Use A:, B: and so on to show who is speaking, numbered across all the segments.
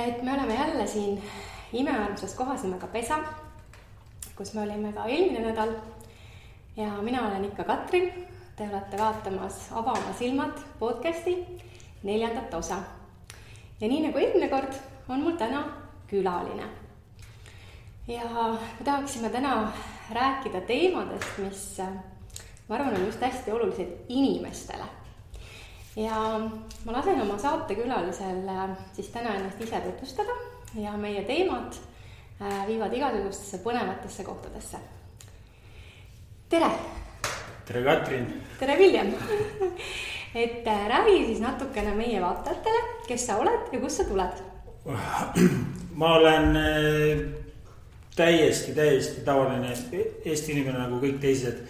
A: et me oleme jälle siin imearmsas kohas nimega Pesa, kus me olime ka eelmine nädal. Ja mina olen ikka Katrin. Te olete vaatamas Ava oma silmad podcasti 4. osa. Ja nii nagu eelmine kord on mul täna külaline. Ja me tahaksime täna rääkida teemadest, mis ma arvan on just hästi olulised inimestele. Ja ma lasen oma saatekülalisel siis täna ennast ise tutvustada ja meie teemad viivad igasugustesse põnevatesse kohtadesse. Tere!
B: Tere Katrin!
A: Tere Viljem! Et räägi siis natukene meie vaatajatele, kes sa oled ja kust sa tuled?
B: Ma olen täiesti tavaline Eesti inimene nagu kõik teised.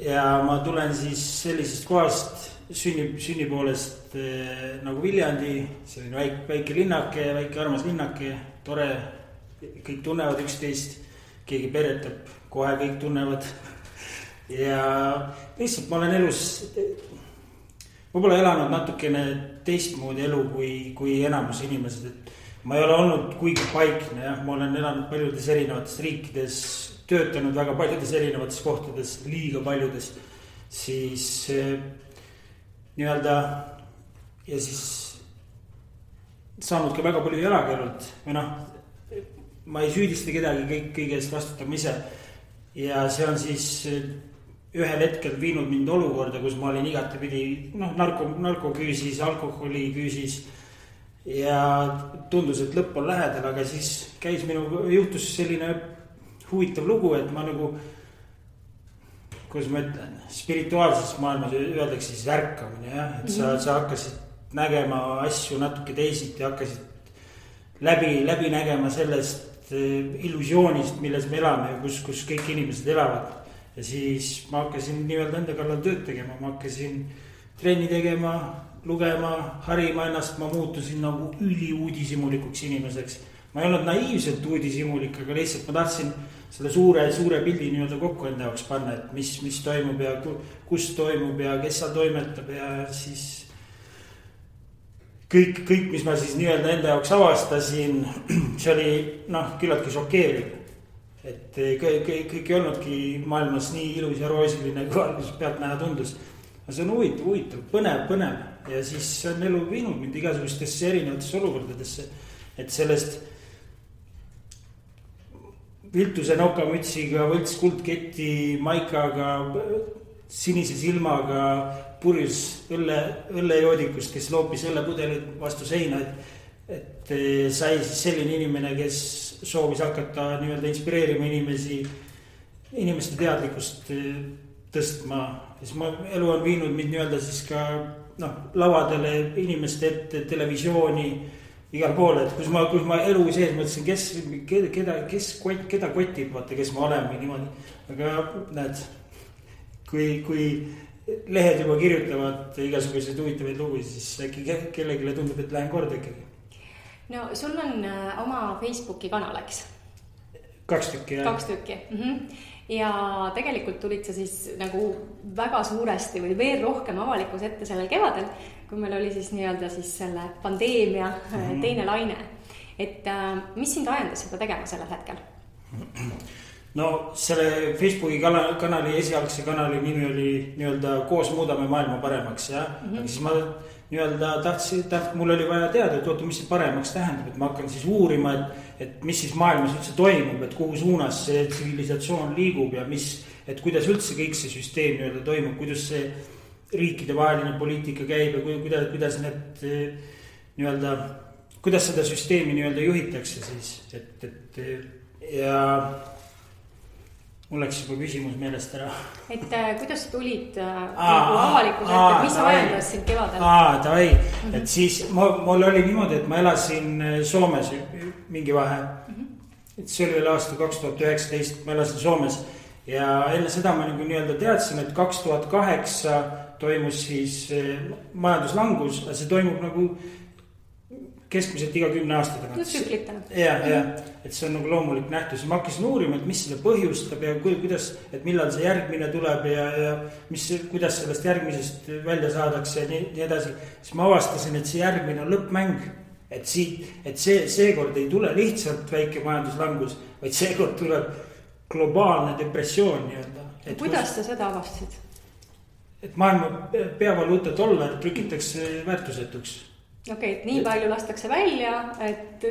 B: Ja ma tulen siis sellisest kohast sünni poolest nagu Viljandi, selline väike linnake, väike armas linnake, tore, kõik tunnevad üksteist, keegi peretab, kohe kõik tunnevad. Ja lihtsalt ma olen elus, ma pole elanud natukene teistmoodi elu kui enamus inimesed, et ma ei ole olnud kuigi paikne, jah, ma olen elanud paljudes erinevates riikides, töötanud väga paljudes erinevates kohtades, liiga paljudes, siis nii-öelda ja siis saanud ka väga palju jalakäinud või ma ei süüdista kedagi, kõige eest vastutab ise ja see on siis ühel hetkel viinud mind olukorda, kus ma olin igatepidi narkoküüsis, alkoholiküüsis ja tundus, et lõpp on lähedal, aga siis juhtus selline huvitav lugu, et ma nagu kuidas ma ütlen, spirituaalses maailmas öeldakse siis ärkamine, jah, et sa hakkasid nägema asju natuke teisiti, hakkasid läbi nägema sellest illusioonist, milles me elame ja kus kõik inimesed elavad. Ja siis ma hakkasin nii-öelda enda kallal tööd tegema, ma hakkasin trenni tegema, lugema, harima ennast, ma muutusin nagu üliuudishimulikuks inimeseks. Ma ei olnud naiivselt uudishimulik, aga lihtsalt ma tahtsin selle suure pildi nii-öelda kokku enda jaoks panna, et mis toimub ja kus toimub ja kes seal toimetab ja siis kõik, mis ma siis nii-öelda enda jaoks avastasin, see oli küllaltki šokeeriv. Et kõik ei olnudki maailmas nii ilus ja roosiline, kui alguses pealt näha tundus. See on huvitav, põnev ja siis on elu viinud mind igasugustesse erinevatesse olukordadesse, et sellest viltuse nokamütsiga, võlts kuldketi, maikaga, sinise silmaga, purjus õllejoodikust, kes loopis õllepudelit vastu seina, et sai siis selline inimene, kes soovis hakata nii-öelda inspireerima inimeste teadlikkust tõstma. Siis elu on viinud mind nii-öelda siis ka lavadele, inimeste ette, televisiooni, igal pool, et kus ma elu sees mõtlesin, keda kotib, vaata, kes ma olen või niimoodi. Aga näed, kui lehed juba kirjutavad igasuguseid huvitavaid lugusid, siis äkki kellegile tundub, et lähen korda ikkagi.
A: No sul on oma Facebooki kanal, eks?
B: 2 tükki, jah.
A: 2 tükki. Ja tegelikult tulid sa siis nagu väga suuresti või veel rohkem avalikus ette sellel kevadel, kui meil oli siis nii-öelda siis selle pandeemia teine laine. Et mis sind ajendas seda tegema sellel hetkel?
B: No selle Facebooki kanali, esialgse kanali nimi oli nii-öelda Koos muudame maailma paremaks, jah. Aga siis ma nii-öelda tahtsin, mul oli vaja teada, et mis see paremaks tähendab, et ma hakkan siis uurima, et mis siis maailmas üldse toimub, et kuhu suunas see tsivilisatsioon liigub ja et kuidas üldse kõik see süsteem nii-öelda toimub, kuidas see riikide vaheline poliitika käib ja kuidas need nii-öelda, kuidas seda süsteemi nii-öelda juhitakse siis, ja mul läks juba küsimus meelest ära. Et
A: kuidas tulid avalikus ette, mis ajendas sind kevadel?
B: Et siis mul oli niimoodi, et ma elasin Soomes mingi vahe. Et see oli veel aasta 2019, ma elasin Soomes ja enne seda ma nii-öelda teadsin, et 2008 toimus siis majanduslangus, aga see toimub nagu keskmiselt iga 10 aasta tagant. Ja, et see on nagu loomulik nähtus. Ma hakkasin uurima, et mis selle põhjustab ja kuidas, et millal see järgmine tuleb ja kuidas sellest järgmisest välja saadakse ja nii edasi. Siis ma avastasin, et see järgmine on lõppmäng. et seekord ei tule lihtsalt väike majanduslangus, vaid seekord tuleb globaalne depressioon nii-öelda.
A: Kuidas te seda avastasid?
B: Et maailma peavaluuta $, trükitakse väärtusetuks.
A: Okei, et nii palju lastakse välja, et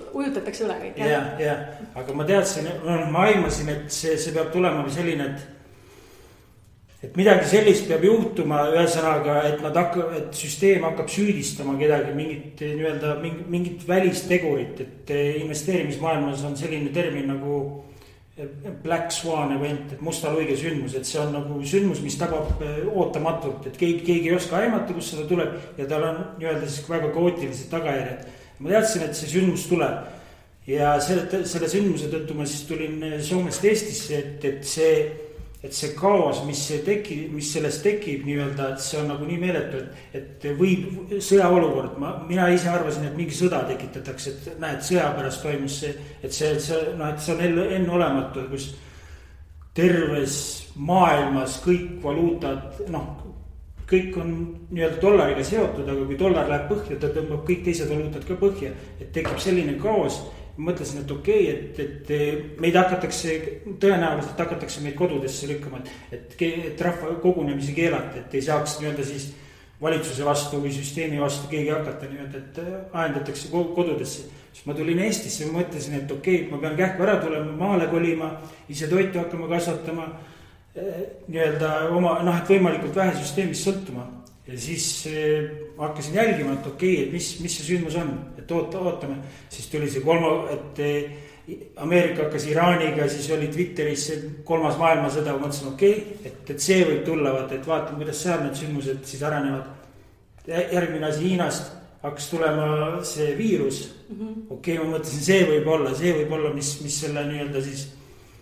A: ujutatakse üle kõik.
B: Ja, aga ma teadsin, ma aimasin, et see peab tulema selline, et midagi sellist peab juhtuma ühesõnaga, et süsteem hakkab süüdistama kedagi mingit välistegurit, et investeerimismaailmas on selline termin nagu Black Swan event, et musta luige sündmus, et see on nagu sündmus, mis tabab ootamatult, et keegi ei oska aimata, kus seda tuleb ja tal on siis väga kaootilised tagajärjed. Ma teadsin, et see sündmus tuleb ja selle sündmuse tõttu ma siis tulin Soomest Eestisse, et see kaos, mis sellest tekib nii-öelda, et see on nagu nii meeletu, et võib sõjaolukord, mina ise arvasin, et mingi sõda tekitatakse, et näed, sõja pärast toimus see, et see on enneolematu, kus terves maailmas kõik valuutad, kõik on nii-öelda dollariga seotud, aga kui dollar läheb põhja, ta tõmbab kõik teised valuutad ka põhja, et tekib selline kaos. Mõtlesin, et okei, et meid tõenäoliselt hakatakse meid kodudesse lükkama, et rahva kogunemisi keelata, et ei saaks nii-öelda siis valitsuse vastu või süsteemi vastu keegi hakata nii-öelda, et ajendatakse kodudesse. Siis ma tulin Eestisse ja mõtlesin, et okei, ma pean kähku ära tulema, maale kolima, ise toitu hakkama kasvatama, nii-öelda et võimalikult vähe süsteemist sõltuma. Ja siis hakkasin jälgima, et okei, et mis see sündmus on, et ootame. Siis tuli see et Ameerika hakkas Iraaniga, siis oli Twitteris 3. maailmasõda, mõtlesin okei, et see võib tulla, et vaatame, kuidas seal need sündmused siis arenevad. Järgmine asi Hiinast hakkas tulema see viirus. Okei, ma mõtlesin, see võib olla, mis selle nii-öelda siis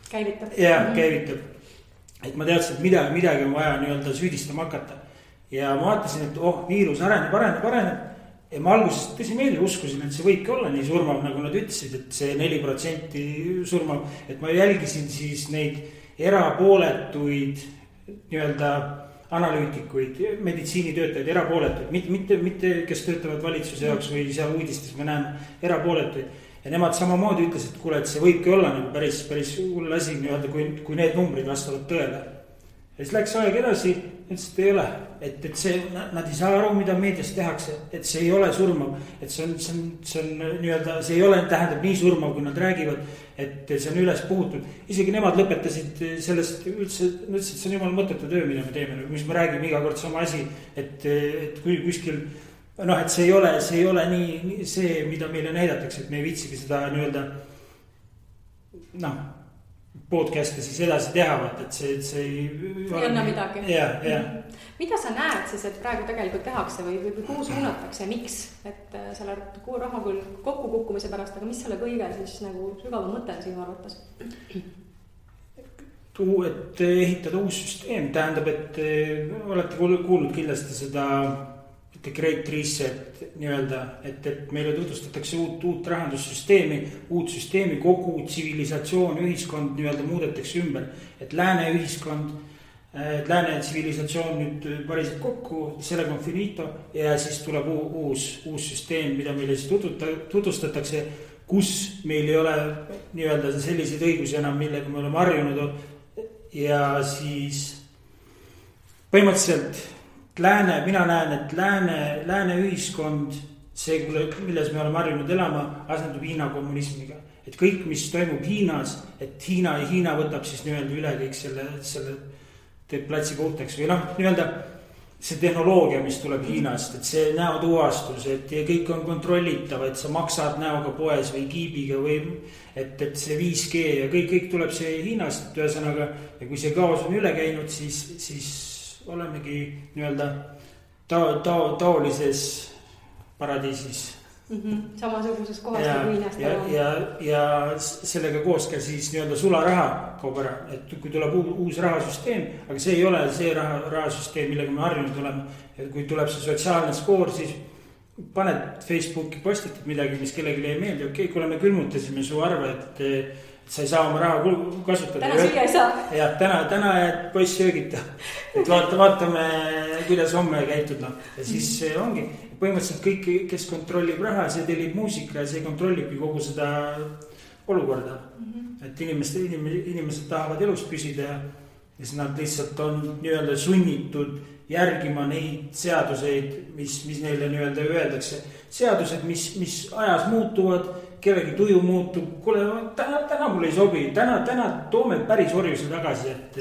A: käivitab.
B: Käivitab. Et ma teadsin, et midagi on vaja nii-öelda süüdistama hakata. Ja ma vaatasin, et viirus areneb. Ja ma alguses tõsimeeli uskusin, et see võibki olla nii surmav, nagu nad ütlesid, et see 4% surmav. Et ma jälgisin siis neid erapooletuid nii-öelda analüütikuid, meditsiinitöötajaid, erapooletuid. Mitte kes töötavad valitsuse jaoks või seal uudistes me näeme erapooletuid. Ja nemad samamoodi ütles, et kuule, et see võibki olla nagu päris hull asi nii-öelda, kui need numbrid vastavad tõele. Ja siis läks aeg edasi, ütles, et ei ole, et nad ei saa aru, mida meedias tehakse, et see ei ole surmav, et see on nii-öelda, see ei ole, tähendab nii surmav, kui nad räägivad, et see on üles puhutud. Isegi nemad lõpetasid sellest üldse, et see on jumal mõttetu töö, mida me teeme, mis me räägime iga kord sama asi, et kui kuskil, et see ei ole nii see, mida meile näidatakse, et me ei viitsigi seda nii-öelda, podcast'e siis edasi teha, et see
A: ei anna midagi.
B: Ja.
A: Mida sa näed siis, et praegu tegelikult tehakse või kuhu suunatakse, miks? Et selle raha küll kokku kukkumise pärast, aga mis selle kõige siis nagu sügava mõte on sinu arvates?
B: Et ehitada uus süsteem, tähendab, et olete kuulnud kindlasti seda Great Reset nii-öelda, et meile tutvustatakse uut rahandussüsteemi, uut süsteemi, kogu tsivilisatsioon, ühiskond nii-öelda muudetakse ümber, et lääne ühiskond, lääne tsivilisatsioon nüüd pariseb kokku, sellega on finito ja siis tuleb uus süsteem, mida meile siis tutvustatakse, kus meil ei ole nii-öelda selliseid õigusi enam, millega me oleme harjunud ja siis põhimõtteliselt mina näen, et lääne ühiskond, see, milles me oleme harjunud elama, asendub Hiina kommunismiga. Et kõik, mis toimub Hiinas, et Hiina võtab siis nii-öelda üle kõik selle teeb platsi puhtaks või nii-öelda see tehnoloogia, mis tuleb Hiinast, et see näotuvastus, et kõik on kontrollitav, et sa maksad näoga poes või kiibiga või et see 5G ja kõik tuleb see Hiinast, et ühesõnaga, ja kui see kaos on üle käinud, siis olemegi nii-öelda taolises paradiisis.
A: Samasuguses kohas kui Hiinast.
B: Ja sellega koos ka siis nii-öelda sularaha kaob ära, et kui tuleb uus rahasüsteem, aga see ei ole see rahasüsteem, millega me harjunud oleme. Et kui tuleb see sotsiaalne skoor, siis paned Facebooki postitad midagi, mis kellelegi ei meeldi. Okei, kui me külmutasime su arve, et sa ei saa oma raha kasutada.
A: Täna süüa ei saa.
B: Jah, täna jääd poiss söögita. Et vaatame, kuidas homme käitud. Ja siis ongi põhimõtteliselt kõik, kes kontrollib raha, see tellib muusika ja see kontrollibki kogu seda olukorda. Et inimesed tahavad elus püsida ja siis nad lihtsalt on nii-öelda sunnitud järgima neid seaduseid, mis neile nii-öelda öeldakse. Seadused, mis ajas muutuvad, kellegi tuju muutub. Kuule, täna mul ei sobi, täna toome päris orjuse tagasi, et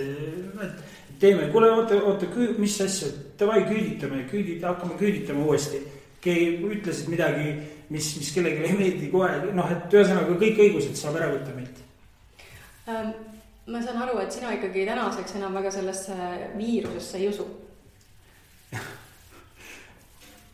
B: teeme. Kuule, oota, mis asja, davai küüditame, hakkame küüditama uuesti. Keegi ütlesid midagi, mis kellegi ei meeldi kohe. Et ühesõnaga kõik õigused saab ära võtta meilt.
A: Ma saan aru, et sina ikkagi tänaseks enam väga sellesse viirusesse ei usu.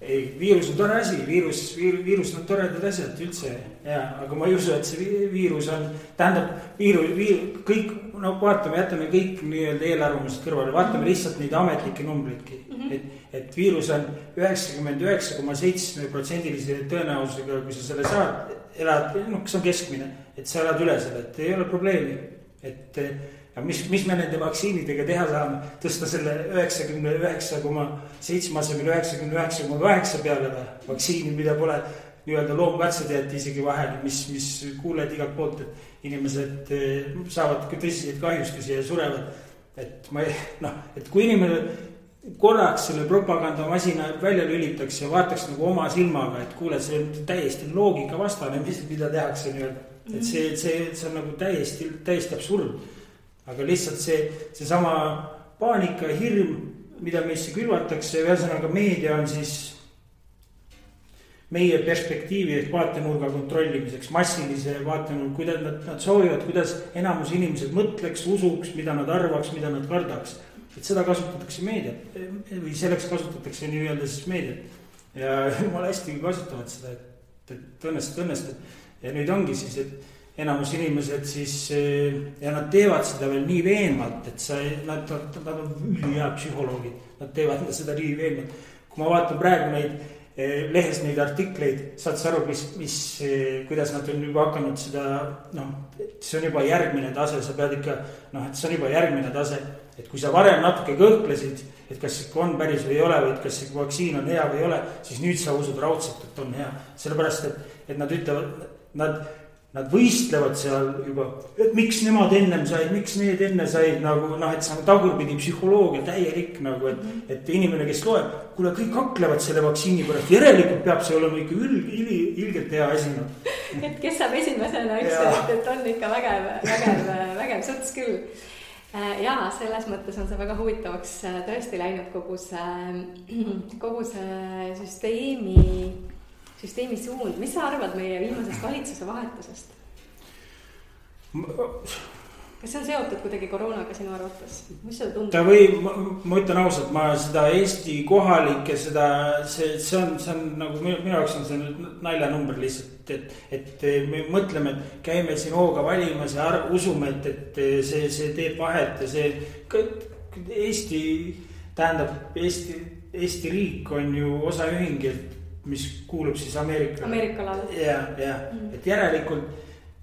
B: Ei, viirus on tore asi, viirus on toredad asjad üldse, aga ma ei usu, et see viirus on, tähendab, kõik, vaatame, jätame kõik nii-öelda eelarvamused kõrvale, vaatame lihtsalt neid ametlikke numbritki, et viirus on 99,7% tõenäosusega, kui sa selle saad, elad, kas on keskmine, et sa elad üle selle, et ei ole probleemi, et mis me nende vaktsiinidega teha saame, tõsta selle 99,7 asemel 99,8 peale vaktsiini, mida pole nii-öelda loomkatsed jäeti isegi vahel, mis kuuled igalt poolt, et inimesed saavad tõsiseid kahjustusi ja surevad. Et kui inimene korraks selle propagandamasina välja lülitaks ja vaataks nagu oma silmaga, et kuule, see on täiesti loogika vastane, mida tehakse nii-öelda. Et see on nagu täiesti absurd. Aga lihtsalt see sama paanika ja hirm, mida meisse külvatakse, ühesõnaga meedia on siis meie perspektiivi ehk vaatenurga kontrollimiseks, massilise vaatenurga, kuidas nad soovivad, kuidas enamus inimesed mõtleks, usuks, mida nad arvaks, mida nad kardaks. Et seda kasutatakse meediat või selleks kasutatakse nii-öelda siis meediat. Ja jumala hästi kasutavad seda, et õnnestab. Ja nüüd ongi siis, et enamus inimesed siis, ja nad teevad seda veel nii veenvalt, et nad on ülihea psühholoogid, nad teevad seda nii veenvalt. Kui ma vaatan praegu lehes neid artikleid, saad sa aru, kuidas nad on juba hakanud seda, see on juba järgmine tase, sa pead ikka, et see on juba järgmine tase, et kui sa varem natuke kõhklesid, et kas ikka on päris või ei ole, või kas ikka vaktsiin on hea või ei ole, siis nüüd sa usud raudselt, et on hea. Sellepärast, et nad ütlevad, nad võistlevad seal juba, et miks nemad ennem said, miks need enne said, et see on tagurpidi psühholoogia täielik, et inimene, kes loeb, kuule, kõik haklevad selle vaktsiini pärast, järelikult peab see olema ikka ilgelt hea asi.
A: Et kes saab esimesena, et on ikka vägev suts küll. Ja selles mõttes on see väga huvitavaks tõesti läinud kogu see süsteemi suund. Mis sa arvad meie viimasest valitsuse vahetusest? Kas see on seotud kuidagi koroonaga sinu arvates? Mis seda tundub?
B: Ma ütlen ausalt, ma seda Eesti kohalikke, see on nagu minu jaoks on see naljanumber lihtsalt, et me mõtleme, et käime siin hooga valimas ja usume, et see teeb vahet ja see Eesti riik on ju osaühing, mis kuulub siis
A: Ameerikale.
B: Et järelikult,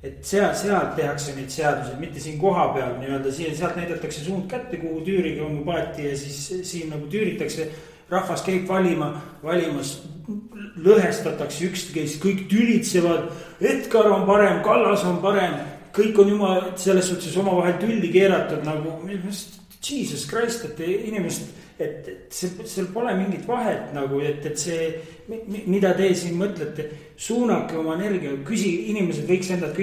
B: et sealt tehakse neid seaduseid, mitte siin koha peal nii-öelda, sealt näidatakse suund kätte, kuhu tüüriga on paati ja siis siin nagu tüüritakse, rahvas käib valimas, lõhestatakse üksteist, kõik tülitsevad, Edgar on parem, Kallas on parem, kõik on jumal selles suhtes oma vahel tülli keeratud nagu, Jesus Christ, et inimesed, et seal pole mingit vahet nagu, et see, mida te siin mõtlete, suunake oma energia, inimesed võiks endalt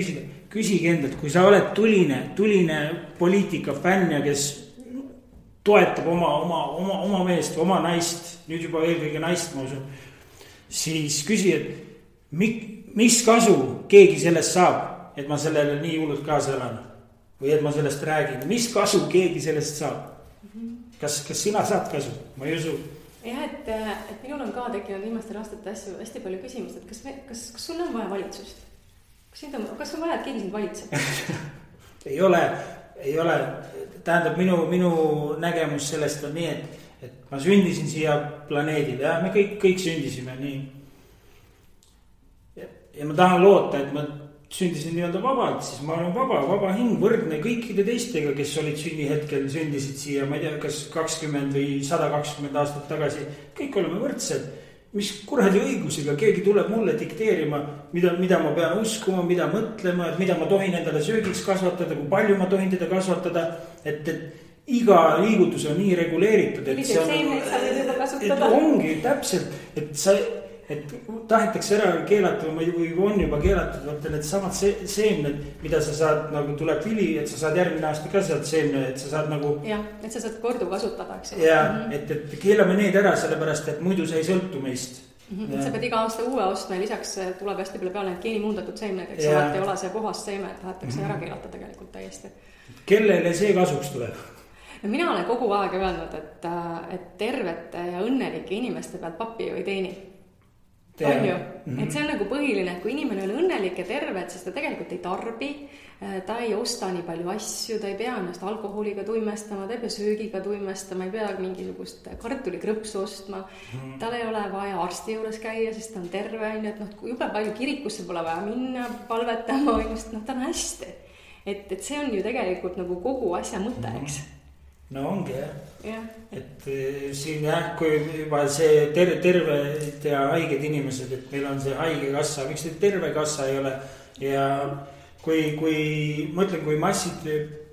B: küsige endalt, kui sa oled tuline poliitika fänn ja kes toetab oma meest, oma naist, nüüd juba eelkõige naist, ma usun, siis küsi, et mis kasu keegi sellest saab, et ma sellele nii hullult kaasa elan või et ma sellest räägin, mis kasu keegi sellest saab? Kas sina saad kasu? Ma ei usu.
A: Jah, et minul on ka tekkinud viimastel aastate hästi palju küsimust, et kas sul on vaja valitsust? Kas on vaja, et keegi sind valitseb?
B: Ei ole. Tähendab, minu nägemus sellest on nii, et ma sündisin siia planeedile ja me kõik sündisime nii. Ja ma tahan loota, et ma sündisin nii-öelda vabalt, siis ma olen vaba hing, võrdne kõikide teistega, kes olid sünnihetkel, sündisid siia, ma ei tea, kas 20 või 120 aastat tagasi. Kõik oleme võrdsed. Mis kuradi õigusega keegi tuleb mulle dikteerima, mida ma pean uskuma, mida mõtlema, et mida ma tohin endale söögiks kasvatada, kui palju ma tohin teda kasvatada, et iga liigutus on nii reguleeritud, et see on, ongi täpselt, et tahetakse ära keelata või on juba keelatud, vaata need samad seemned, mida sa saad, nagu tuleb vili, et sa saad järgmine aasta ka sealt seemne, et sa saad nagu.
A: Jah, et sa saad kordu kasutada, eks.
B: Ja, et keelame need ära, sellepärast, et muidu see ei sõltu meist.
A: Sa pead iga aasta uue ostma ja lisaks tuleb hästi palju peale need geenimuundatud seemned, eks alati ei ole see puhas seeme, et tahetakse ära keelata tegelikult täiesti.
B: Kellele see kasuks tuleb?
A: No mina olen kogu aeg öelnud, et tervete ja õnnelike inimeste pealt papi ju ei teeni. On ju, et see on nagu põhiline, et kui inimene on õnnelik ja terve, siis ta tegelikult ei tarbi, ta ei osta nii palju asju, ta ei pea ennast alkoholiga tuimestama, ta ei pea söögiga tuimestama, ei pea mingisugust kartulikrõpsu ostma, tal ei ole vaja arsti juures käia, sest ta on terve, et jube palju kirikusse pole vaja minna, palvetama, ta on hästi. Et see on ju tegelikult nagu kogu asja mõte, eks?
B: No ongi jah. Et siin kui juba see terved ja haiged inimesed, et meil on see haige kassa, miks see terve kassa ei ole ja kui mõtlen, kui massid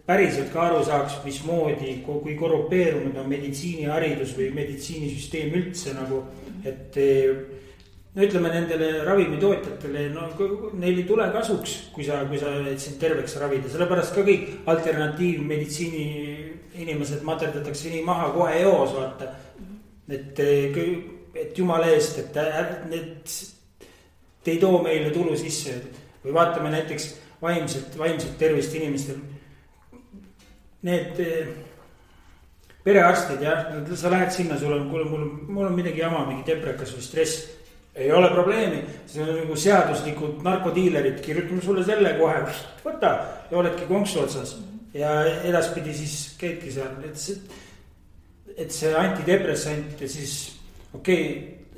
B: päriselt ka aru saaks, mismoodi, kui korrupeerunud on meditsiiniharidus või meditsiinisüsteem üldse nagu, et no ütleme nendele ravimitootjatele, neil ei tule kasuks, kui sa sind terveks ravida, sellepärast ka kõik alternatiivmeditsiini inimesed materdatakse nii maha kohe eos, vaata. Et jumala eest, et te ei too meile tulu sisse. Või vaatame näiteks vaimselt tervist inimestel. Need perearstid, jah, sa lähed sinna, mul on midagi jama, mingi deprekas või stress. Ei ole probleemi, see on nagu seaduslikud narkodiilerid, kirjutame sulle selle kohe, võta ja oledki konksu otsas. Ja edaspidi siis käidki seal, et see antidepressant ja siis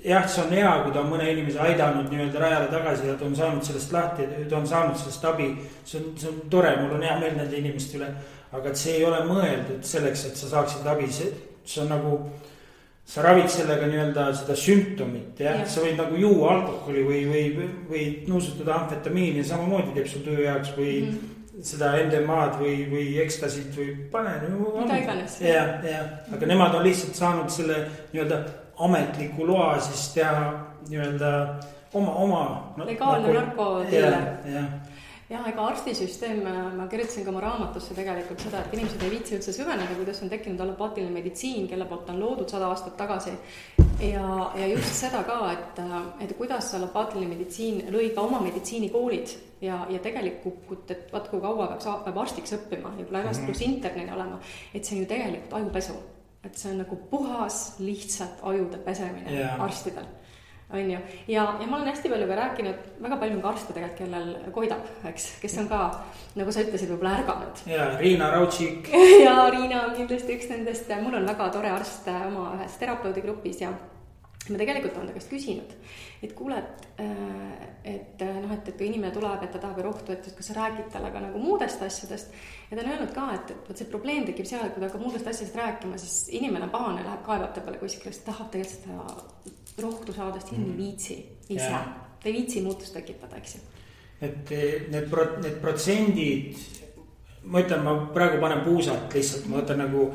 B: jah, see on hea, kui ta on mõne inimese aidanud nii-öelda rajale tagasi ja ta on saanud sellest lahti, ta on saanud sellest abi, see on tore, mul on hea meel nende inimeste üle, aga et see ei ole mõeldud selleks, et sa saaksid abi, see on nagu, sa ravid sellega nii-öelda seda sümptomit, jah, sa võid nagu juua alkoholi või nuusutada amfetamiini ja samamoodi teeb sul töö jaoks või seda NDMA-d või ekstasid või pane.
A: Mida iganes.
B: Ja, aga nemad on lihtsalt saanud selle nii-öelda ametliku loa siis teha nii-öelda oma
A: legaalne narkodiiler.
B: Ja,
A: ega arstisüsteem, ma kirjutasin ka oma raamatusse tegelikult seda, et inimesed ei viitsi üldse süveneda, kuidas on tekkinud allopaatiline meditsiin, kelle poolt on loodud 100 aastat tagasi. Ja just seda ka, et kuidas allopaatiline meditsiin lõi ka oma meditsiinikoolid ja tegelikult, et vaat kui kaua peab arstiks õppima ja kui lägast pluss internini olema, et see on ju tegelikult ajupesu. Et see on nagu puhas, lihtsalt ajude pesemine arstidel. On ju. Ja ma olen hästi palju ka rääkinud, väga palju on ka arste tegelikult, kellel koidab, eks, kes on ka, nagu sa ütlesid, võib-olla ärganud.
B: Ja Riina Raudšik.
A: Ja Riina on kindlasti üks nendest, mul on väga tore arst oma ühes terapeutigrupis ja ma tegelikult olen ta käest küsinud, et kuule, et kui inimene tuleb, et ta tahab rohtu, et kas sa räägid talle ka nagu muudest asjadest ja ta on öelnud ka, et see probleem tekib seal, kui ta hakkab muudest asjadest rääkima, siis inimene pahane läheb kaevab ta peale kuskil, sest tahab tegelikult seda rohtu saadest hinni viitsi ise. Ta ei viitsi muutust tekitada, eks ju. Et
B: need protsendid, ma ütlen, ma praegu panen puusalt lihtsalt, ma võtan nagu,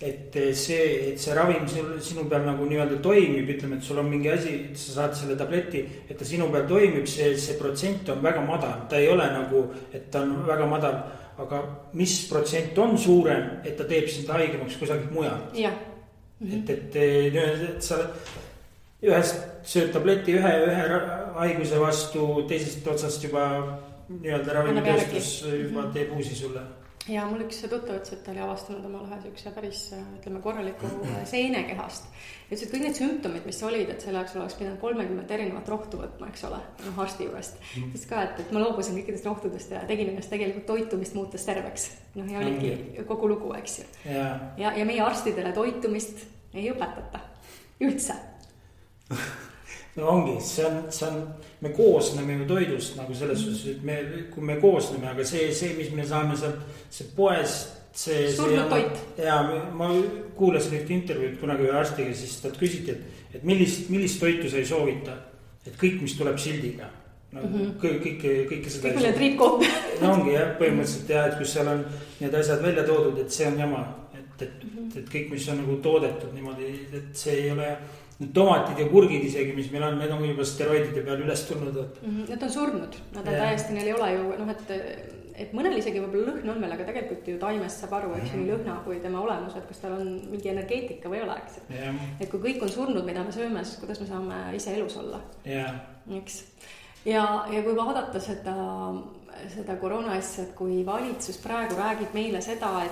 B: et see ravim sinu peal nagu nii-öelda toimib, ütleme, et sul on mingi asi, et sa saad selle tableti, et ta sinu peal toimib, see protsent on väga madal, ta ei ole nagu, et ta on väga madal, aga mis protsent on suurem, et ta teeb sind haigemaks kusagilt mujal. Et sa ühest sööd tableti ühe haiguse vastu, teisest otsast juba nii-öelda ravimitööstus juba teeb uusi sulle.
A: Ja mul üks tuttav ütles, et ta oli avastanud omal ühe sükse päris, ütleme, korraliku seenekehast. Ja ütles, et kõik need sümptomid, mis olid, et selle jaoks oleks pidanud 30 erinevat rohtu võtma, eks ole, arsti juurest. Ütles ka, et ma loobusin kõikidest rohtudest ja tegin ennast tegelikult toitumist muutes terveks. Ja oligi kogu lugu, eks ju. Ja meie arstidele toitumist ei õpetata üldse.
B: no ongi, see on, me koosneme ju toidust nagu selles suhtes, et kui me koosneme, aga see, mis me saame sealt, see poes,
A: surnud toit.
B: Ja ma kuulasin ühte intervjuud kunagi ühe arstiga, siis talt küsiti, et millist toitu sa ei soovita, et kõik, mis tuleb sildiga. Kõike seda.
A: Kõik need riipkood.
B: No ongi jah, põhimõtteliselt jah, et kus seal on need asjad välja toodud, et see on jama, et kõik, mis on nagu toodetud niimoodi, et see ei ole, need tomatid ja kurgid isegi, mis meil on, need on juba steroidide peal üles tulnud.
A: Need on surnud, nad on täiesti, neil ei ole ju, et mõnel isegi võib-olla lõhn on veel, aga tegelikult ju taimest saab aru, eks nii lõhna kui tema olemus, et kas tal on mingi energeetika või ei ole, eks. Et kui kõik on surnud, mida me sööme, siis kuidas me saame ise elus olla. Eks. Ja kui vaadata seda koroona asja, et kui valitsus praegu räägib meile seda,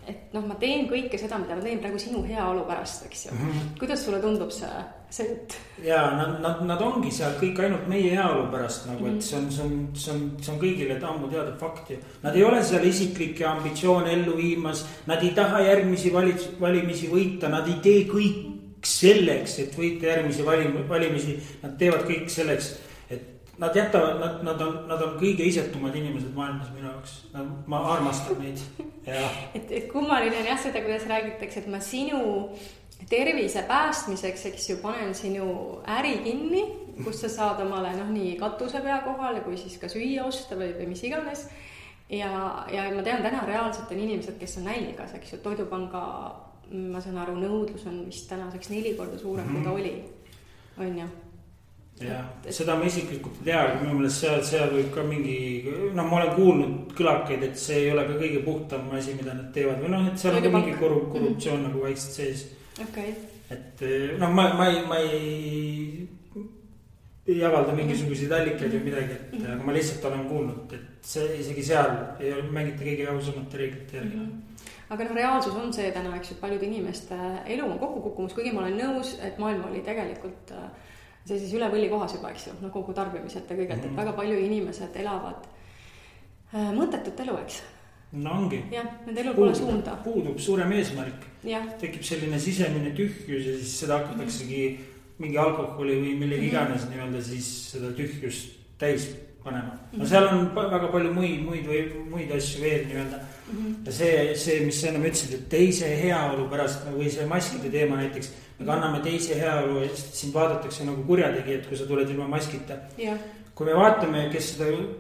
A: et ma teen kõike seda, mida ma teen praegu sinu heaolu pärast, eks ju. Kuidas sulle tundub see jutt?
B: Ja nad ongi seal kõik ainult meie heaolu pärast, nagu, et see on kõigile ammu teada fakt. Nad ei ole seal isiklikke ambitsioone ellu viimas, nad ei taha järgmisi valimisi võita, nad ei tee kõik selleks, et võita järgmisi valimisi, nad teevad kõik selleks. Nad jätavad, nad on kõige isetumad inimesed maailmas minu jaoks. Ma armastan neid.
A: Et kummaline on jah seda, kuidas räägitakse, et ma sinu tervise päästmiseks, eks ju, panen sinu äri kinni, kus sa saad omale nii katuse pea kohale, kui siis ka süüa osta või mis iganes. Ja ma tean, täna reaalselt on inimesed, kes on nälgas, eks ju, Toidupanga, ma saan aru, nõudlus on vist tänaseks 4 korda suurem, kui ta oli. On ju?
B: Ja, seda ma isiklikult ei tea, aga minu meelest seal võib ka mingi, ma olen kuulnud kõlakaid, et see ei ole ka kõige puhtam asi, mida nad teevad või et seal on ka mingi korruptsioon nagu vaikselt sees. Et ma ei avalda mingisuguseid allikaid või midagi, aga ma lihtsalt olen kuulnud, et see isegi seal ei ole mängita kõige ausamate reeglite järgi.
A: Aga reaalsus on see täna, eks ju, paljude inimeste elu on kokku kukkumus, kuigi ma olen nõus, et maailm oli tegelikult see siis üle võlli kohas juba, eks ju, kogu tarbimised ja kõigelt, et väga palju inimesed elavad mõttetut elu, eks.
B: No ongi.
A: Jah, nende elul pole suunda.
B: Puudub suurem eesmärk. Tekib selline sisemine tühjus ja siis seda hakataksegi mingi alkoholi või millegi iganes nii-öelda siis seda tühjust täis panema. No seal on väga palju muid asju veel nii-öelda. Ja see, mis sa enam ütlesid, et teise heaolu pärast või see maskide teema näiteks, me kanname teise heaolu ja sind vaadatakse nagu kurjategijad, kui sa tuled ilma maskita. Kui me vaatame,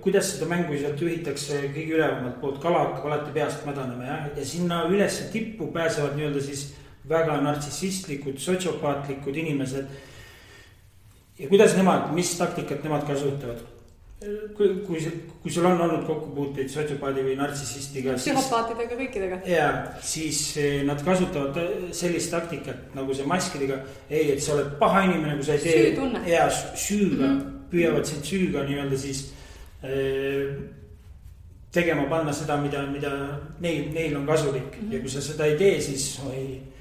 B: kuidas seda mängu sealt juhitakse kõige ülevamalt poolt, kala hakkab alati peast mädanema ja sinna üles tippu pääsevad nii-öelda siis väga nartsissistlikud, sotsiopaatlikud inimesed. Ja kuidas nemad, mis taktikat nemad kasutavad? Kui sul on olnud kokkupuuteid sotsiopaadi või nartsissistiga,
A: psühhopaatidega, kõikidega.
B: Ja siis nad kasutavad sellist taktikat nagu see maskidega. Ei, et sa oled paha inimene, kui sa ei tee.
A: Süütunne.
B: Ja süüga, püüavad sind süüga nii-öelda siis tegema panna seda, mida neil on kasulik. Ja kui sa seda ei tee, siis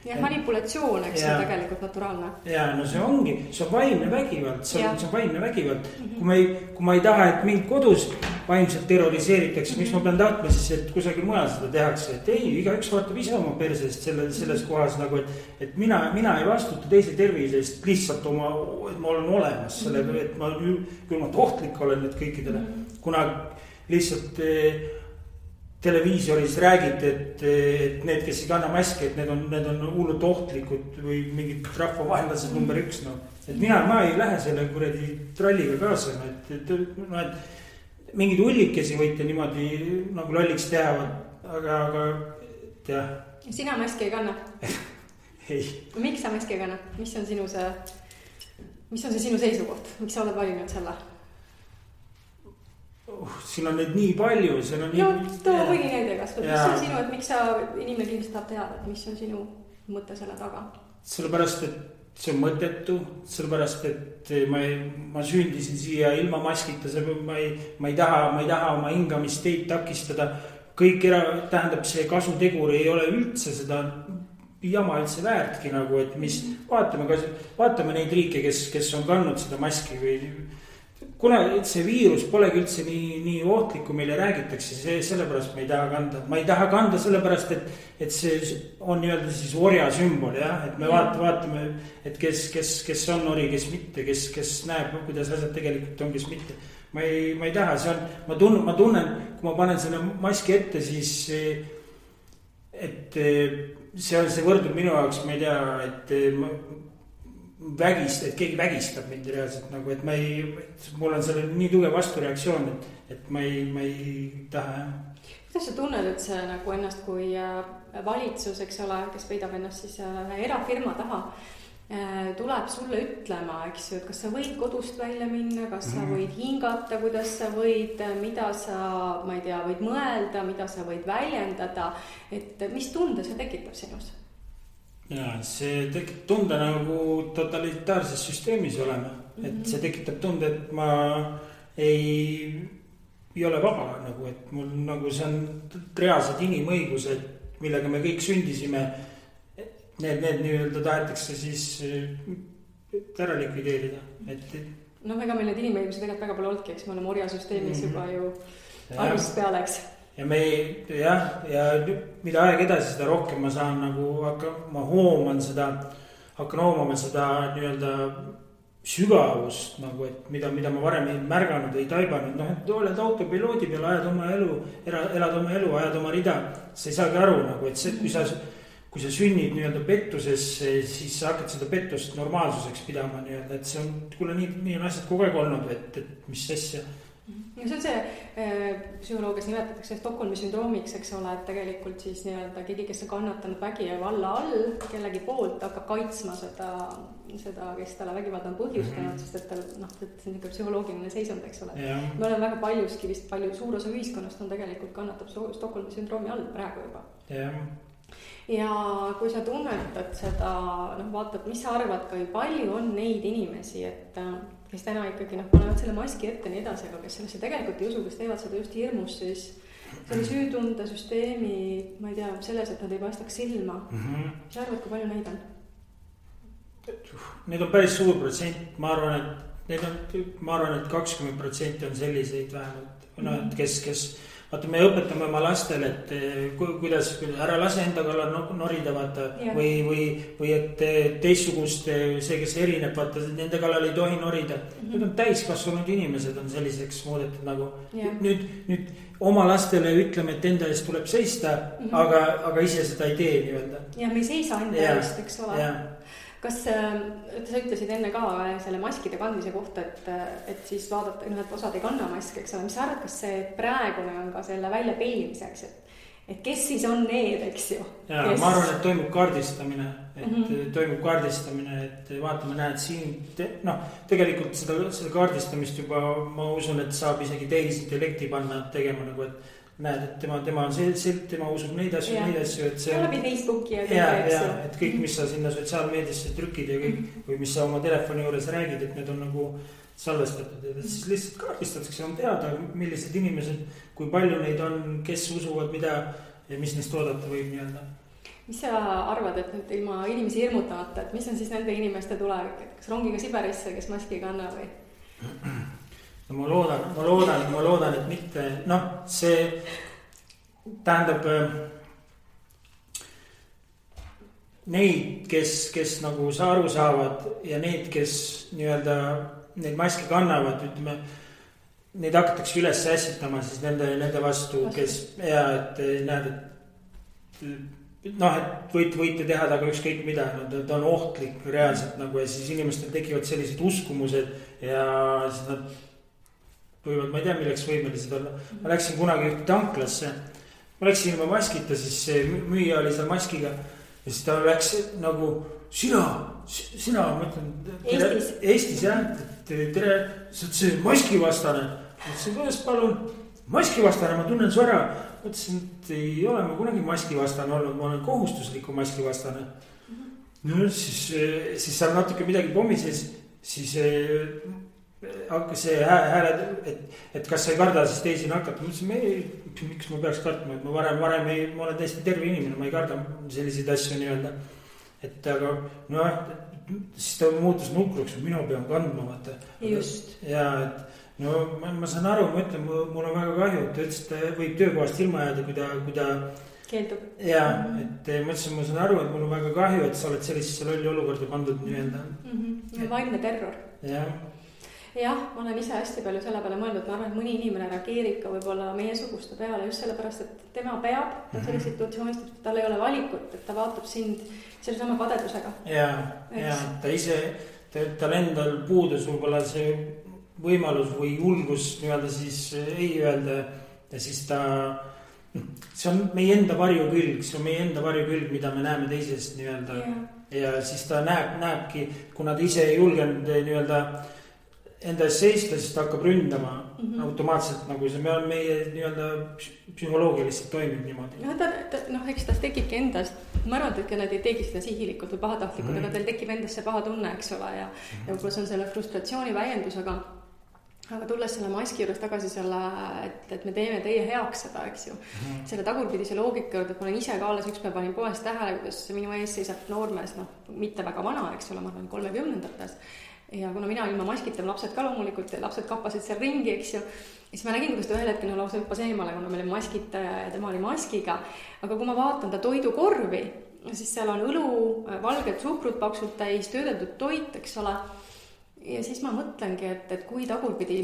A: ja manipulatsioon, eks see tegelikult naturaalne.
B: Ja no see ongi, see on vaimne vägivald, see on vaimne vägivald. Kui ma ei taha, et mind kodus vaimselt terroriseeritakse, miks ma pean tahtma siis, et kusagil mujal seda tehakse, et ei, igaüks vaatab ise oma persest selles kohas nagu, et mina ei vastuta teise tervisest lihtsalt et ma olen olemas selle, et küll ma tohtlik olen nüüd kõikidele, kuna lihtsalt televiisoris räägid, et need, kes ei kanna maski, et need on hullult ohtlikud või mingid rahvavaenlased number 1. Et ma ei lähe selle kuradi tralliga kaasa, et mingid hullikesi võite niimoodi nagu lolliks teha, aga jah.
A: Sina maski ei kanna?
B: Ei.
A: Miks sa maski ei kanna? Mis on sinu sinu seisukoht? Miks sa oled valinud selle?
B: Siin on neid nii palju,
A: too mõni näide kas, mis on sinu, et miks sa inimene kindlasti tahab teada, et mis on sinu mõte selle taga?
B: Sellepärast, et see on mõttetu, sellepärast, et ma sündisin siia ilma maskita, ma ei taha oma hingamist teid takistada, kõik tähendab see kasutegur ei ole üldse seda jama üldse väärtki nagu, et mis vaatame neid riike, kes on kandnud seda maski või kuna see viirus polegi üldse nii ohtlik, kui meile räägitakse, sellepärast me ei taha kanda. Ma ei taha kanda sellepärast, et see on nii-öelda siis orja sümbol, jah. Et me vaatame, et kes on ori, kes mitte, kes näeb, kuidas asjad tegelikult on, kes mitte. Ma ei taha, see on, ma tunnen, kui ma panen selle maski ette, siis, et see võrdub minu jaoks, ma ei tea, et et keegi vägistab mind reaalselt nagu, et mul on selle nii tugev vastureaktsioon, et ma ei taha, jah.
A: Kuidas sa tunned, et see nagu ennast kui valitsus, eks ole, kes peidab ennast siis erafirma taha, tuleb sulle ütlema, eks ju, et kas sa võid kodust välja minna, kas sa võid hingata, kuidas sa võid, mida sa, ma ei tea, võid mõelda, mida sa võid väljendada, et mis tunde see tekitab sinus?
B: Ja see tekitab tunde nagu totalitaarses süsteemis olema, et see tekitab tunde, et ma ei ole vaba nagu, et mul nagu see on reaalsed inimõigused, millega me kõik sündisime. Need nii-öelda tahetakse siis ära likvideerida, et.
A: No ega meil need inimõigused tegelikult väga palju olnudki, eks me oleme orjasüsteemis juba ju algusest peale, eks.
B: Ja ja mida aeg edasi, seda rohkem ma saan nagu, ma hakkan hoomama seda nii-öelda sügavust nagu, et mida ma varem ei märganud, ei taibanud, et oled autopiloodi peal, elad oma elu, ajad oma rida, sa ei saagi aru nagu, et see, kui sa sünnid nii-öelda pettuses, siis sa hakkad seda pettust normaalsuseks pidama nii-öelda, et see on, kuule, nii on asjad kogu aeg olnud, et mis asja.
A: Ja see on see psühholoogias nimetatakse Stockholmi sündroomiks, eks ole, et tegelikult siis nii-öelda keegi, kes on kannatanud vägivalla all, kellegi poolt hakkab kaitsma seda, kes talle vägivalda on põhjustanud, sest et see on ikka psühholoogiline seisund, eks ole. Me oleme väga paljuski vist suur osa ühiskonnast on tegelikult kannatab Stockholmi sündroomi all praegu juba. Ja kui sa tunnetad seda, vaatad, mis sa arvad, kui palju on neid inimesi, et kes täna ikkagi panevad selle maski ette nii edasi, aga kes sellesse tegelikult ei usu, kes teevad seda just hirmus, siis selle süütunde süsteemi, ma ei tea, selles, et nad ei paistaks silma. Mis arvad, kui palju neid on?
B: Need on päris suur protsent, ma arvan, et 20% on selliseid vähemalt, kes vaata, me õpetame oma lastele, et kuidas ära lase enda kallal norida, vaata, või et teistsugust, see, kes erineb, vaata, nende kallal ei tohi norida. Nüüd on täiskasvanud inimesed on selliseks muudetud nagu. Nüüd oma lastele ütleme, et enda eest tuleb seista, aga ise seda ei tee nii-öelda.
A: Ja me ei seisa enda eest, eks ole. Kas sa ütlesid enne ka selle maskide kandmise kohta, et siis vaadata, et osad ei kanna maski, eks ole, mis sa arvad, kas see praegune on ka selle välja peilimiseks, et kes siis on need, eks ju?
B: Ja ma arvan, et toimub kaardistamine, et vaatame, näed siin, tegelikult seda kaardistamist juba ma usun, et saab isegi tehisintellekti panna tegema nagu, et näed, et tema on tema usub neid asju, et see
A: läbi Facebooki
B: ja, et kõik, mis sa sinna sotsiaalmeediasse trükid ja kõik, või mis sa oma telefoni juures räägid, et need on nagu salvestatud, et siis lihtsalt kaardistatakse, on teada, millised inimesed, kui palju neid on, kes usuvad mida ja mis neist oodata võib nii-öelda.
A: Mis sa arvad, et nüüd ilma inimesi hirmutamata, et mis on siis nende inimeste tulevik, et kas rongiga Siberisse, kes maski ei kanna või?
B: No ma loodan, et mitte, see tähendab neid, kes nagu aru saavad ja neid, kes nii-öelda neid maske kannavad, ütleme, neid hakatakse üles ässitama siis nende vastu, kes et näed, et võite teha taga ükskõik mida, ta on ohtlik reaalselt nagu ja siis inimestel tekivad sellised uskumused ja siis nad võivad, ma ei tea, milleks võimelised olla. Ma läksin kunagi ühte tanklasse, ma läksin ilma maskita, siis see müüja oli seal maskiga ja siis ta läks nagu sina, ma ütlen Eestis jah, tere, sa oled see maskivastane. Ma ütlesin, kuidas palun, maskivastane, ma tunnen su ära. Ma ütlesin, et ei ole ma kunagi maskivastane olnud, ma olen kohustusliku maskivastane. No siis seal natuke midagi pommises, siis hakkas see hääled, et kas sa ei karda siis teisi nakata. Ma ütlesin, miks ma peaks kartma, et ma varem ma olen täiesti terve inimene, ma ei karda selliseid asju nii-öelda. Et aga siis ta muutus nukruks, et mina pean kandma, vaata.
A: Just.
B: Ja, et no ma saan aru, ma ütlen, mul on väga kahju, et ta ütles, et ta võib töökohast ilma jääda, kui ta
A: keeldub.
B: Ja, et ma ütlesin, ma saan aru, et mul on väga kahju, et sa oled sellisesse lolli olukorda pandud nii-öelda.
A: Vaimne terror. Jah, ma olen ise hästi palju selle peale mõeldud, ma arvan, et mõni inimene reageerib ka võib-olla meie suguste peale just sellepärast, et tema peab selles situatsioonis, et tal ei ole valikut, et ta vaatab sind selle sama kadedusega. Ja, ta ise, tal endal puudus võib-olla see võimalus või julgus nii-öelda siis ei öelda ja siis ta, see on meie enda varjukülg, mida me näeme teisest nii-öelda ja siis ta näebki, kuna ta ise ei julgenud nii-öelda enda eest seista, siis ta hakkab ründama automaatselt, nagu see meie nii-öelda psühholoogiliselt toimib niimoodi. Eks ta tekibki endast, ma arvan, et nad ei tegi seda sihilikult või pahatahtlikult, aga teil tekib endast see paha tunne, eks ole, ja võib-olla see on selle frustratsiooni väljendus, aga tulles selle maski juures tagasi selle, et me teeme teie heaks seda, eks ju. Selle tagurpidise loogika juurde, et ma olen ise ka alles ükspäev panin poes tähele, kuidas minu ees seisab noormees, mitte väga vana, eks ole, ma arvan 30-ndates. Ja kuna mina ilma maskita, lapsed ka loomulikult, lapsed kappasid seal ringi, eks ju, siis ma nägin, kuidas ta ühel hetkel lausa hüppas eemale, kuna meil oli maskita ja tema oli maskiga. Aga kui ma vaatan ta toidukorvi, siis seal on õlu, valged suhkrut paksult täis, töödeldud toit, eks ole. Ja siis ma mõtlengi, et kui tagurpidi